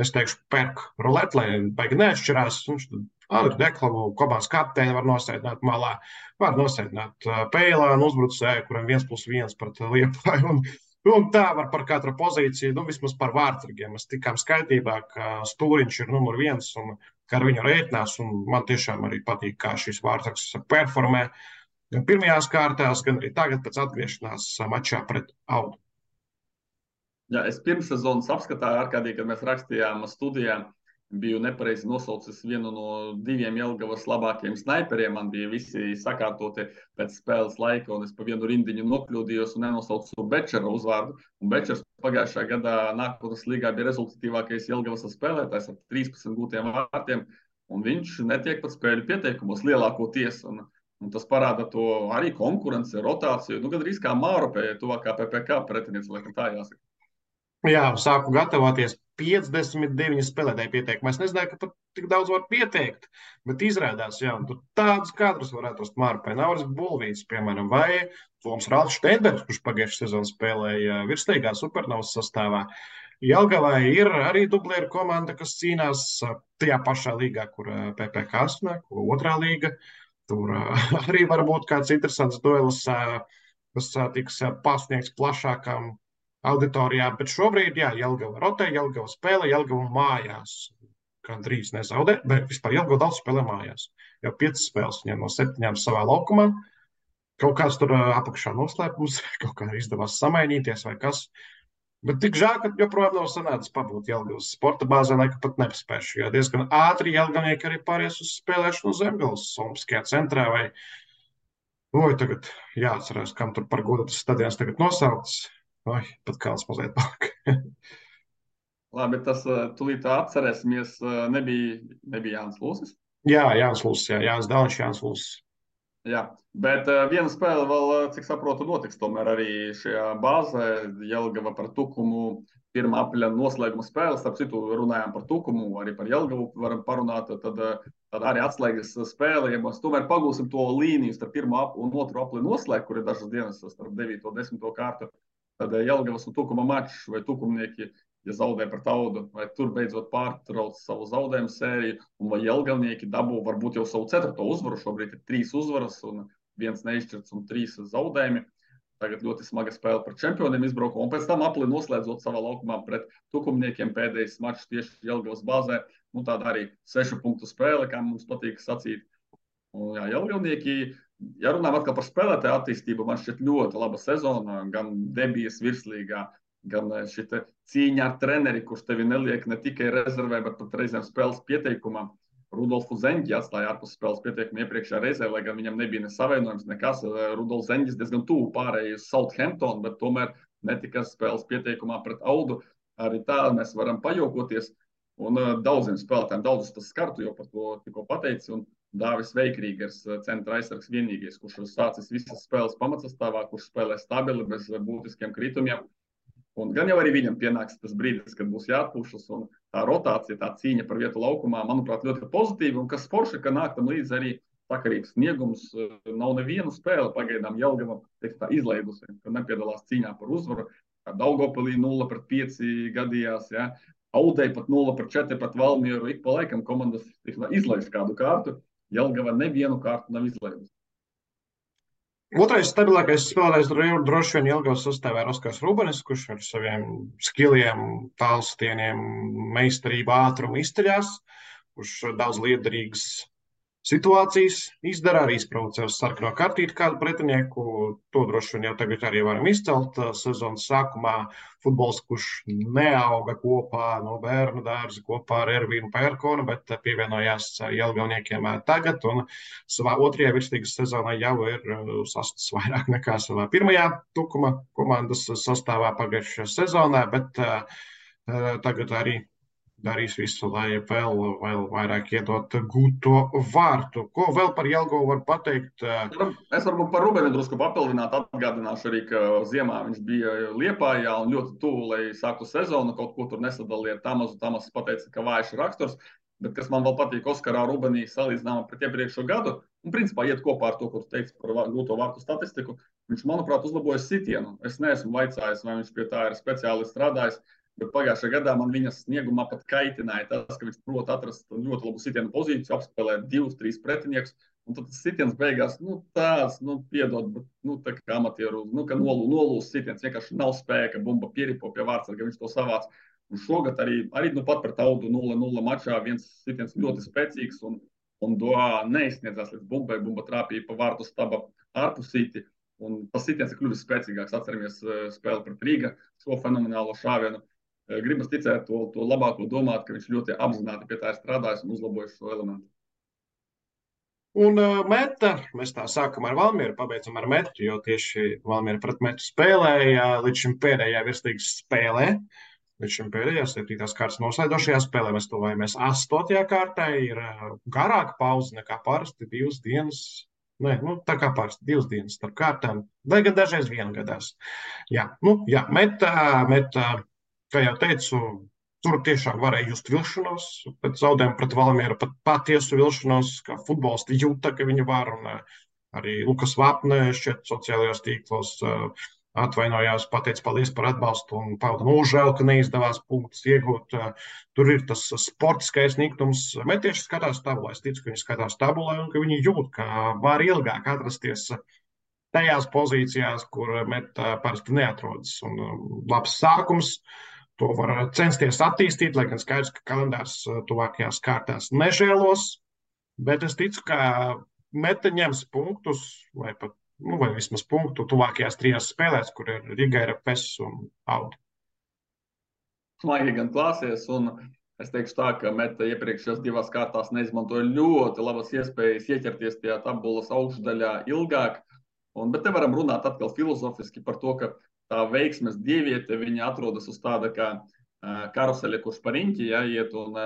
Speaker 1: es teikšu, perk rulēt, lai baigi neatšķirās. Viņš Andru Deklavu komandas kapteini var nosēdināt malā, var nosēdināt Peilānu uzbrucēju, kuram 1+1 pret Liepāju. Un tā var par katru pozīciju, vismaz par vārdsargiem. Mēs tikām skaidrībā, ka Stūriņš ir numur 1 un ka ar viņu rēķinās. Un man tiešām arī patīk, kā šis vārdsargs performē gan pirmajās kārtās, gan arī tagad pēc atgriešanās mačā pret Audu.
Speaker 3: Jā, es pirms sezonas apskatā ārkārtīgi, kad mēs rakstījām studijā, biju nepareizi nosaucis vienu no 2 Jelgavas labākajiem snaiperiem. Man bija visi sakārtoti pēc spēles laika, un es pa vienu rindiņu nokļūdījos un nenosaucu Bečera uzvārdu. Un Bečers pagājušā gadā nākotnes līgā bija rezultatīvākais Jelgavas spēlētājs ar 13 gūtiem vārtiem, un viņš netiek pat spēļu pieteikumos lielākoties. Un tas parāda to arī konkurenci, rotāciju. Gandrīz kā Māropē, tuvākā PPK pretiniece, laikam tā jāsaka.
Speaker 1: Jā, sāku gatavoties 59 spēlētāju pieteikumā. Es nezināju, ka pat tik daudz var pieteikt, bet izrādās, jā, un tur tādus kadrus var atrast Mārpē. Nauris Bulvīts, piemēram, vai Toms Ralfs Šteinbergs, kurš pagājušajā sezonā spēlēja virssteigā Supernovas sastāvā. Jelgavā ir arī dublieru komanda, kas cīnās tajā pašā līgā, kur PPK sanāk, otrā līga. Tur arī var būt kāds interesants duelis, kas tiks pasniegts plašākām auditorijā, bet šobrīd, jā, Jelgava rotē, Jelgava spēlē, Jelgava mājās. Gandrīz nezaudē, bet vispār Jelgava daudz spēlē mājās. Jau 5 spēles viņam no 7 savā laukumā. Kaut kāds tur apakšā noslēpums, kaut kā izdevās samainīties vai kas. Bet tik žēl, ka joprojām nav sanācis pabūt Jelgavas sporta bāzē, lai pat nepaspēšu, jo diezgan ātri jelgavnieki arī pāries uz spēlēšanu Zemgales Olimpiskajā centrā vai, tagad jāatcerās, kam tur par godu tas stadions tagad nosaukts. Pat kāds mazliet palika.
Speaker 3: Labi, tas tūlīt atcerēsimies, nebija Jānis Lūsis.
Speaker 1: Jā, Jānis Lūsis, Jānis Dāniņš, Jānis Lūsis.
Speaker 3: Jā, bet viena spēle vēl, cik saprotu, notiks tomēr arī šajā bāzē. Jelgava par Tukumu 1. aprīļa noslēguma spēle. Starp citu, runājām par Tukumu, arī par Jelgavu varam parunāt. Tad arī atslēgas spēle. Ja mēs tomēr pagūsim to līniju starp 1. un 2. aprīļa noslēgu, kur ir dažas dienas starp 9. un 10. kārtu, tad Jelgavas un Tukuma mačs vai tukumnieki, ja zaudē pret Audu, vai tur beidzot pārtrauc savu zaudējumu sēriju, un vai jelgavnieki dabū varbūt jau savu 4. uzvaru. Šobrīd ir 3 uzvaras un 1 neizšķirts un 3 zaudējumi. Tagad ļoti smaga spēle par čempioniem izbraukumā, un pēc tam apli noslēdzot savā laukumā pret tukumniekiem pēdējais mačs tieši Jelgavas bāzē. Tāda arī 6 punktu spēle, kā mums patīk sacīt. Un, jā, jelgavnieki, ja runājam atkal par spēlētāju attīstību, man šķiet ļoti laba sezona, gan debijas virslīgā, gan šī cīņa ar treneri, kurš tevi neliek ne tikai rezervē, bet pat reizēm spēles pieteikumā. Rudolfu Zeņģi atstāja ārpus spēles pieteikumu iepriekšējā reizē, lai gan viņam nebija nesavienojums nekas. Rudolfs Zeņģis diezgan tuvu pārējai uz Southampton, bet tomēr netika spēles pieteikumā pret Audu. Arī tā mēs varam pajokoties. Un daudziem spēlētājiem, daudzus tas skartu, jau par to tikko pateici. Un Dāvis Veikrīgers, centra aizsargs vienīgais, kurš sācis visas spēles pamatsastāvā, kurš spēlē stabili, bez būtiskiem kritumiem. Un gan jau arī viņam pienāks tas brīdis, kad būs jāatpūšas, un tā rotācija, tā cīņa par vietu laukumā, manuprāt, ļoti pozitīva. Un kas forši, ka nāk tam līdzi arī sakarīgs sniegums. Nav nevienu spēli pagaidām Jelgava izlaidusi, ka nepiedalās cīņā par uzvaru. Daugavpilī 0-5 gadījās, ja. Audei pat 0-4 pret Valmieru. Ik pa laikam komandas izlaiž kādu kārtu. Jelgava nevienu kārtu nav izlaidusi.
Speaker 1: Otrais stabilākais spēlētājs droši vien Jelgavas sastāvā ir Oskars Rubenis, kurš ar saviem skilliem, tālstieniem, meistarību, ātrumu izceļās, kurš daudz liederīgas situācijas izdara, arī izprovocē uz sarkano kartīti kādu pretinieku. To droši vien jau tagad arī varam izcelt. Sezonas sākumā futbols, kurš neauga kopā no bērnu dārza kopā ar Ervīnu Pērkonu, bet pievienojās Jelgavniekiem tagad. Un savā otrajā virsligas sezonā jau ir sastāvs vairāk nekā savā pirmajā Tukuma komandas sastāvā pagājušajā sezonā, bet tagad arī darīs visu, lai vēl vairāk iedot gūto vārtu. Ko vēl par Jelgavu var pateikt?
Speaker 3: Es varbūt par Rubeni drusku papildinātu, atgādināšu arī, ka ziemā viņš bija Liepājā un ļoti tuvu, lai sāktu sezonu, kaut ko tur nesadaliet. Tamas pateica, ka vājš raksturs, bet kas man vēl patīk Oskarā Rubenī salīdzinājumā pret iepriekšo gadu, un principā iet kopā ar to, ko tu teici par gūto vārtu statistiku, viņš, manuprāt, uzlabojas sitienu. Es neesmu vaicājis, vai viņš pie tā ir speciāli strādājis. Bet pagājušajā gadā man viņas sniegumā pat kaitināja tas, ka viņš prot atrast ļoti labu sitienu pozīciju, apspēlēt 2-3 pretiniekus. Un tad tas sitiens beigās, piedod, bet tā kā amatieru, ka nolūs sitiens, vienkārši nav spēka, bumba pieripo pie vārtsarga, viņš to savāc. Un šogad arī pat pret Audu 0-0 mačā viens sitiens ļoti spēcīgs un Doā neizsniedzās līdz bumbai, bumba trāpīja pa vārtu staba ārpusīti. Un tas sitiens ir kļuvis spēcīgāks, atceramies spēli pret Rīga, šo fenomenālo šāvienu. Gribas ticēt to labāko domāt, ka viņš ļoti apzināti pie tā ir strādājis un uzlabojis šo elementu.
Speaker 1: Un meta, mēs tā sākam ar Valmieru, pabeidzam ar metu, jo tieši Valmiera pret metu spēlēja līdz šim pēdējā virslīgas spēlē. Līdz šim pēdējā 7. kārtas noslēdošajā spēlē mēs tuvojamies 8. kārtai, ir garāka pauze nekā parasti 2 dienas. Tā kā parasti 2 dienas starp kārtām, vai gan dažreiz viena gadās. Meta. Kā jau teicu, tur tiešām varēja just vilšanos, pēc zaudējuma pret Valmieru pat patiesu vilšanos, kā futbolisti jūta, ka viņi var, un arī Lukas Vapne šķiet sociālajos tīklos atvainojās, pateica paldies par atbalstu un pauda nožēlu, ka neizdevās punktus iegūt. Tur ir tas sportiskais niknums. Metieši skatās tabulē, es ticu, ka viņi skatās tabulē un ka viņi jūt, ka var ilgāk atrasties tajās pozīcijās, kur Meta parasti neatrodas. Un labs sākums. To var censties attīstīt, lai gan skaidrs, ka kalendārs tuvākajās kārtās nežēlos, bet es ticu, ka Meta ņems punktus, vai vismaz punktu tuvākajās 3 spēlēs, kur ir Riga, RFS un Auda.
Speaker 3: Smaigi gan klāsies, un es teikšu tā, ka Meta iepriekšējās 2 kārtās neizmantoja ļoti labas iespējas ieķerties tajā tabulas augšdaļā ilgāk, bet te varam runāt atkal filozofiski par to, ka tā veiksmes dieviete, viņa atrodas uz tāda kā karuseļa, kurš pa riņķi iet, un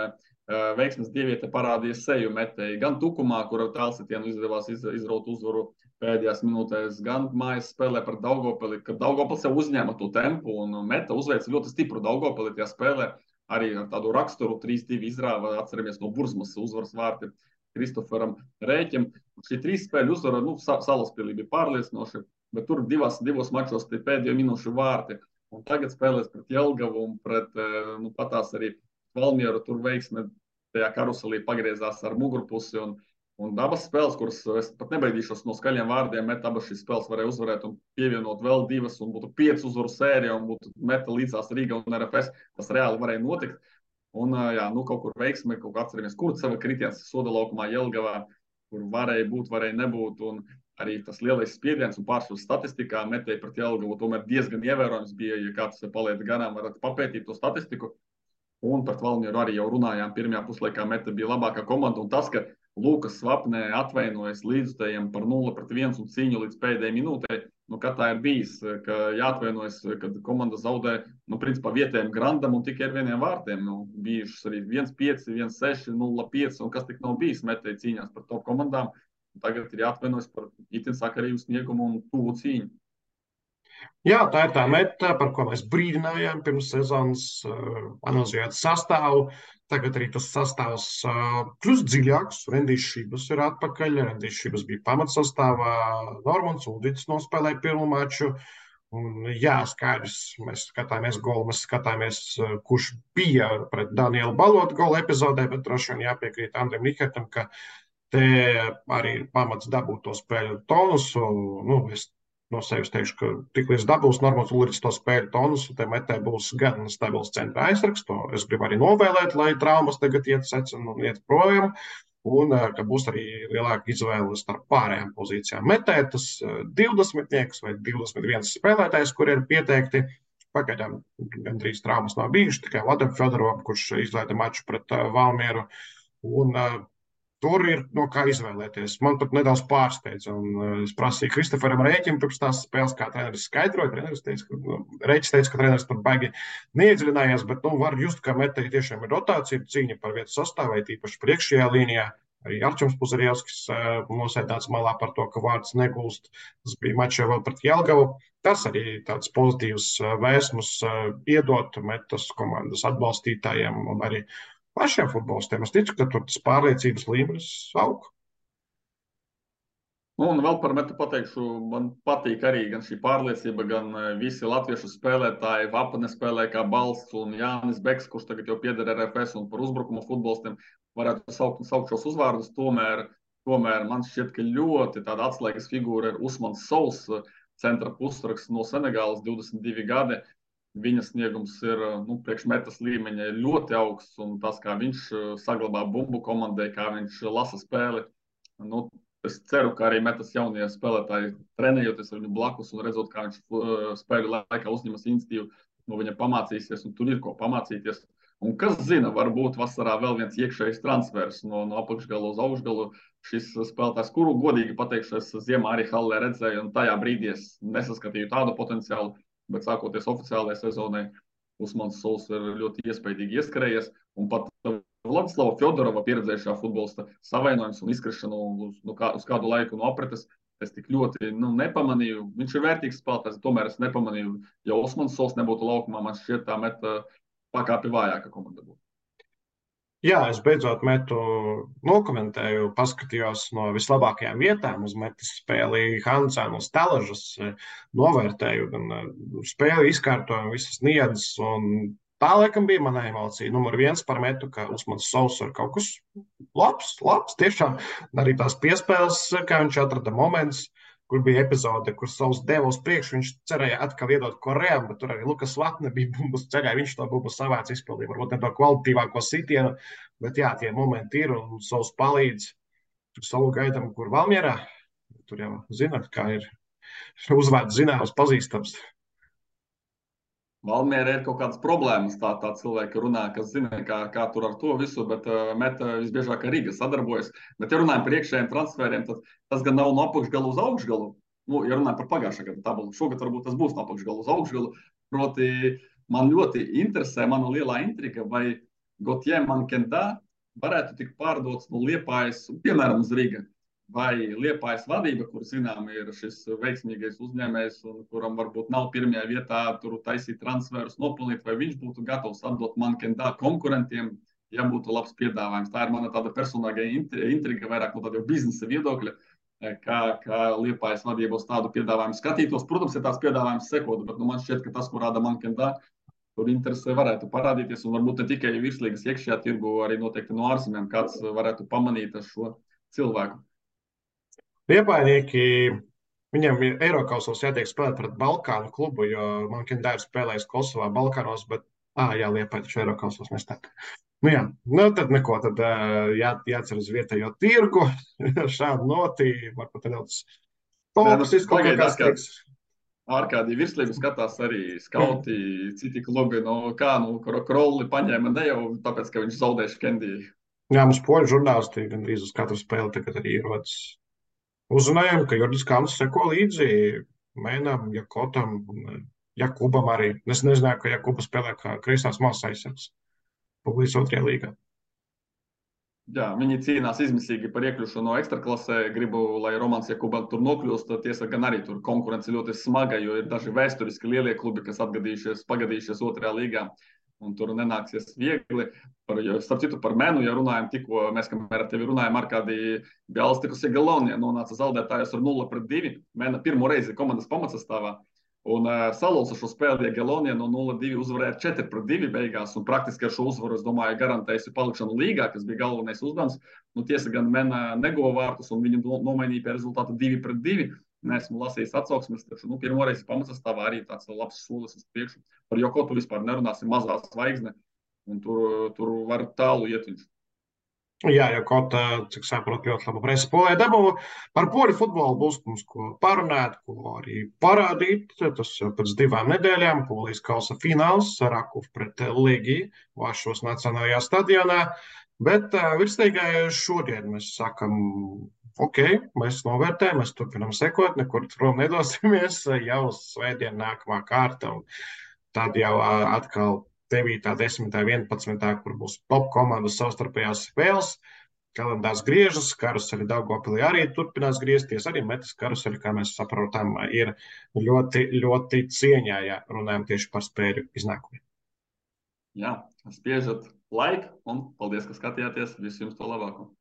Speaker 3: veiksmes dieviete parādīja seju Metei. Gan Tukumā, kur ar tālsitienu izdevās izraut uzvaru pēdējās minūtēs, gan mājas spēlē par Daugavpili, kad Daugavpils jau uzņēma to tempu, un Meta uzveica ļoti stipru Daugavpili tajā spēlē, arī ar tādu raksturu 3-2 izrāva, atceramies no Burzmas uzvaras vārti Kristoferam Rēķim. Šī 3 spēļu uzvara, Salaspilī bija pārliecinoši, bet tur 2 mačos tie pēdējo minūšu vārti. Un tagad spēlēs pret Jelgavu un pret patās arī Valmieru. Tur veiksme tajā karuselī pagriezās ar mugurpusi. Un abas spēles, kuras es pat nebaidīšos no skaļiem vārdiem, Meta abas šīs spēles varēja uzvarēt un pievienot vēl 2 un būtu 5 uzvaru sērija un būtu Meta līdzās Riga un RFS. Tas reāli varēja notikt. Un kaut kur veiksme, kaut kā atceramies, Kurceva kritiens soda laukumā Jelgavā, kur varēja būt, varēja nebūt. Un arī tas lielais spiediens un pārsvars statistikā Metei pret Jelgavu tomēr diezgan ievērojams bija, ja kāds paliek garām, varat papētīt to statistiku. Un pret Valmieru arī jau runājām, pirmajā puslaikā Meta bija labākā komanda, un tas, ka Lukas Vapnē atvainojas līdzutējiem par 0-1 un cīņu līdz pēdējai minūtei, kā tā ir bijis, ka jāatvainojas, kad komanda zaudē, principā vietējiem Grandam un tikai ar 1 vārtiem. Bijušas arī 1-5, 1-6, 0-5, un kas tik nav bijis Metei cīņās par top komandām. Tagad ir jāatvainojas par itin sakarīgu sniegumu un tuvu cīņu.
Speaker 1: Jā, tā ir tā meta, par ko mēs brīdinājām pirms sezonas, analizējot sastāvu. Tagad arī tas sastāvs kļūst dziļāks. Rendijs Šības ir atpakaļ. Rendijs Šības bija pamatsastāvā. Normans Uldits nospēlēja pirmo maču. Un, jā, skaidrs, mēs skatāmies golu, mēs skatāmies, kurš bija pret Danielu Balotu gola epizodē, bet droši vien jāpiekrīt Andriem Nikertam, ka te arī ir pamats dabūt to spēļu tonusu. Nu, es no sevis teikšu, ka tiklīdz dabūs Normāls Ulrichs to spēļu tonusu, te metē būs gan stabils centra aizsargs. To es gribu arī novēlēt, lai traumas tagad iet secina un iet projām. Un ka būs arī lielāka izvēle starp pārējām pozīcijām. Metē tas 20 vai 21 spēlētājs, kur ir pieteikti. Pagaidām gandrīz traumas nav bijušas, tikai Vladam Fedorovam, kurš izlaida maču pret Valmieru. Un tur ir no kā izvēlēties. Man pat nedaudz pārsteidza. Es prasīju Kristoferam rēķinu pirms tās spēles, kā treneris skaidroja. Treneris teica, Rēķis teica, ka treneris tur baigi neiedziļinājās, bet var just, ka metēji tiešām ir rotācija, cīņa par vietu sastāvē, tīpaši priekšējā līnijā. Arī Arčuns Puzarjevskis nosēdāts malā par to, ka vārds negūst. Tas bija mačā vēl pret Jelgavu. Tas arī tāds pozitīvs vēsmus iedot metas komandas atbalstītājiem un arī pašiem futbolistiem. Es ticu, ka tur tas pārliecības līmenis aug.
Speaker 3: Un vēl par metu pateikšu, man patīk arī gan šī pārliecība, gan visi latviešu spēlētāji. Vapane spēlē kā balsts un Jānis Beks, kurš tagad jau pieder RFS un par uzbrukumu futbolistiem varētu saukt šos uzvārdus. Tomēr man šķiet, ka ļoti tāda atslēgas figūra ir Usmans Sols, centra pusraksts no Senegālas, 22 gadi. Viņa sniegums ir priekšmetas līmeņa ļoti augsts, un tas, kā viņš saglabā bumbu komandai, kā viņš lasa spēli. Es ceru, ka arī metas jaunie spēlētāji trenējoties ar viņu blakus un redzot, kā viņš spēļu laikā uzņemas iniciatīvu, no viņa pamācīsies, un tur ir ko pamācīties. Un kas zina, varbūt vasarā vēl viens iekšējs transfers no apakšgala uz augšgalu. Šis spēlētājs, kuru godīgi pateikšu, es ziemā arī Hallē redzēju, un tajā brīdī es nesaskatīju tādu potenciālu. Bet sākoties oficiālajai sezonai, Usmans Sols ir ļoti iespaidīgi ieskrējies. Un pat Vladislava Fjodorova pieredzējušā futbolista savainojums un izkrišanu uz kādu laiku no apretes es tik ļoti nepamanīju. Viņš ir vērtīgs spēlētājs, tomēr es nepamanīju. Ja Usmans Sols nebūtu laukumā, man šķiet tā meta pakāpi vājāka komanda būtu.
Speaker 1: Jā, es beidzot metu nokomentēju, paskatījos no vislabākajām vietām uz metas spēli Hansēnu uz Teležas, novērtēju gan spēli izkārtojumu, visas niedzes, un tā laikam bija mana emocija. Numur 1 par metu, ka Usmans Sols ir kaut kas labs, tiešām arī tās piespēles, kā viņš atrada moments, kur bija epizode, kur Sols deva uz priekšu, viņš cerēja atkal iedot Korejam, bet tur arī Lukas Latne bija bumbas ceļā, viņš to bumbu savāc izpildīja, varbūt ne to kvalitīvāko sitienu, bet jā, tie momenti ir, un Sols palīdz. Tur Solu gaidām, kur Valmierā, tur jau zināt, kā ir uzvārds zināms, pazīstams.
Speaker 3: Valmierā ir kaut kādas problēmas, tā cilvēki runā, kas zina, kā tur ar to visu, bet meta visbiežāk ar Rīga sadarbojas. Bet, ja runājam par iekšējiem transferiem, tad tas gan nav no apakšgalu uz augšgalu. Ja runājam par pagājušā gada tabulu, šogad varbūt tas būs no apakšgalu uz augšgalu. Proti, man ļoti interesē, mana lielā intriga, vai Gauthier Mankenda varētu tikt pārdots no Liepājas, piemēram, uz Rīga. Vai Liepājas vadība, kur zinām ir šis veiksmīgais uzņēmējs un kuram varbūt nav pirmajā vietā tur taisīt transferus, nopelnīt, vai viņš būtu gatavs atdot Mankendā konkurentiem, ja būtu labs piedāvājums. Tā ir mana tāda personīga intriga, vairāk no tāda biznesa viedokļa, kā Liepājas vadība uz tādu piedāvājumu skatītos. Protams, ja tās piedāvājums sekotu, bet man šķiet, ka tas, ko rāda Mankendā, tur interesē varētu parādīties, un varbūt ne tikai virslīgas iekšējā tirgu, arī noteikti no ārzemēm kāds varētu pamanīt šo cilvēku.
Speaker 1: Liepainieki, viņam ir Eirokausos jātiek spēlēt pret Balkānu klubu, jo Mankendē ir spēlējis Kosovā, Balkānos, bet, Liepāja taču Eirokausos nestāv. Tad neko, tad jācer uz vietējo tirgu, šādu notī, varbūt nedaudz toksisku kaut kāds tiks.
Speaker 3: Ārkārtīgi virslību skatās arī skauti, citi klubi, Krolli paņēma ne jau tāpēc, ka viņš zaudēja Kendiju.
Speaker 1: Jā, mums poļu žurnālisti gandrīz uz katru spēli tagad arī ierodas. Uzrunājām, ka Jordis Kāns seko līdzi Mēnam, Jakotam un Jakubam arī. Es nezināju, ka Jakuba spēlē kā kreisās malas aizsargs Publijas 2. līgā.
Speaker 3: Jā, viņi cīnās izmisīgi par iekļūšanu no ekstraklasē. Gribu, lai Romans Jakubēns tur nokļūst. Tiesa gan arī tur konkurence ļoti smaga, jo ir daži vēsturiski lielie klubi, kas pagadījušies otrajā līgā. Un tur nenāksies viegli. Starp citu, par Menu, ja runājam, tikko mēs, kamēr ar tevi runājam, Arkādija Bjāls tikusi Galonijā, nonāca zaudētājos ar 0-2. Mena pirmo reizi komandas pamatsastāvā. Un salūza šo spēli, ja Galonija no 0-2 uzvarēja 4-2 beigās. Un praktiski ar šo uzvaru, es domāju, garantējusi palikšanu līgā, kas bija galvenais uzdevums. Nu, tiesa gan Mena neguva vārtus, un viņi nomainīja pie rezultātu 2-2. Neesmu lasījis atsauksmes, taču pirmo reizi pamatsastāvā arī tāds labs solis uz priekšu. Par Jokotu vispār nerunāsim, mazā zvaigzne, un tur var tālu iet viņš.
Speaker 1: Jā, jau kaut kā, cik saprotu, ļoti labu presi polē dabū. Par poļu futbolu būs mums ko parunāt, ko arī parādīt. Tas jau pēc 2 nedēļām, Polijas kausa fināls, Rakuf pret Legiju, Vašos Nacionālajā stadionā. Bet virstīgai šodien mēs sakam, ok, mēs novērtējam, mēs turpinam sekot, nekur prom nedosimies, jau uz svētdienu nākamā kārta, un tad jau atkal 9., 10., 11., kur būs top komandas savstarpējās spēles. Kalendārs griežas, karuseli Daugavpilī arī turpinās griezties, arī Metas karuseli, kā mēs saprotam, ir ļoti, ļoti cieņā, ja runājam tieši par spēļu iznākumiem.
Speaker 3: Jā, spiežat laiku un paldies, ka skatījāties. Visu jums to labāko!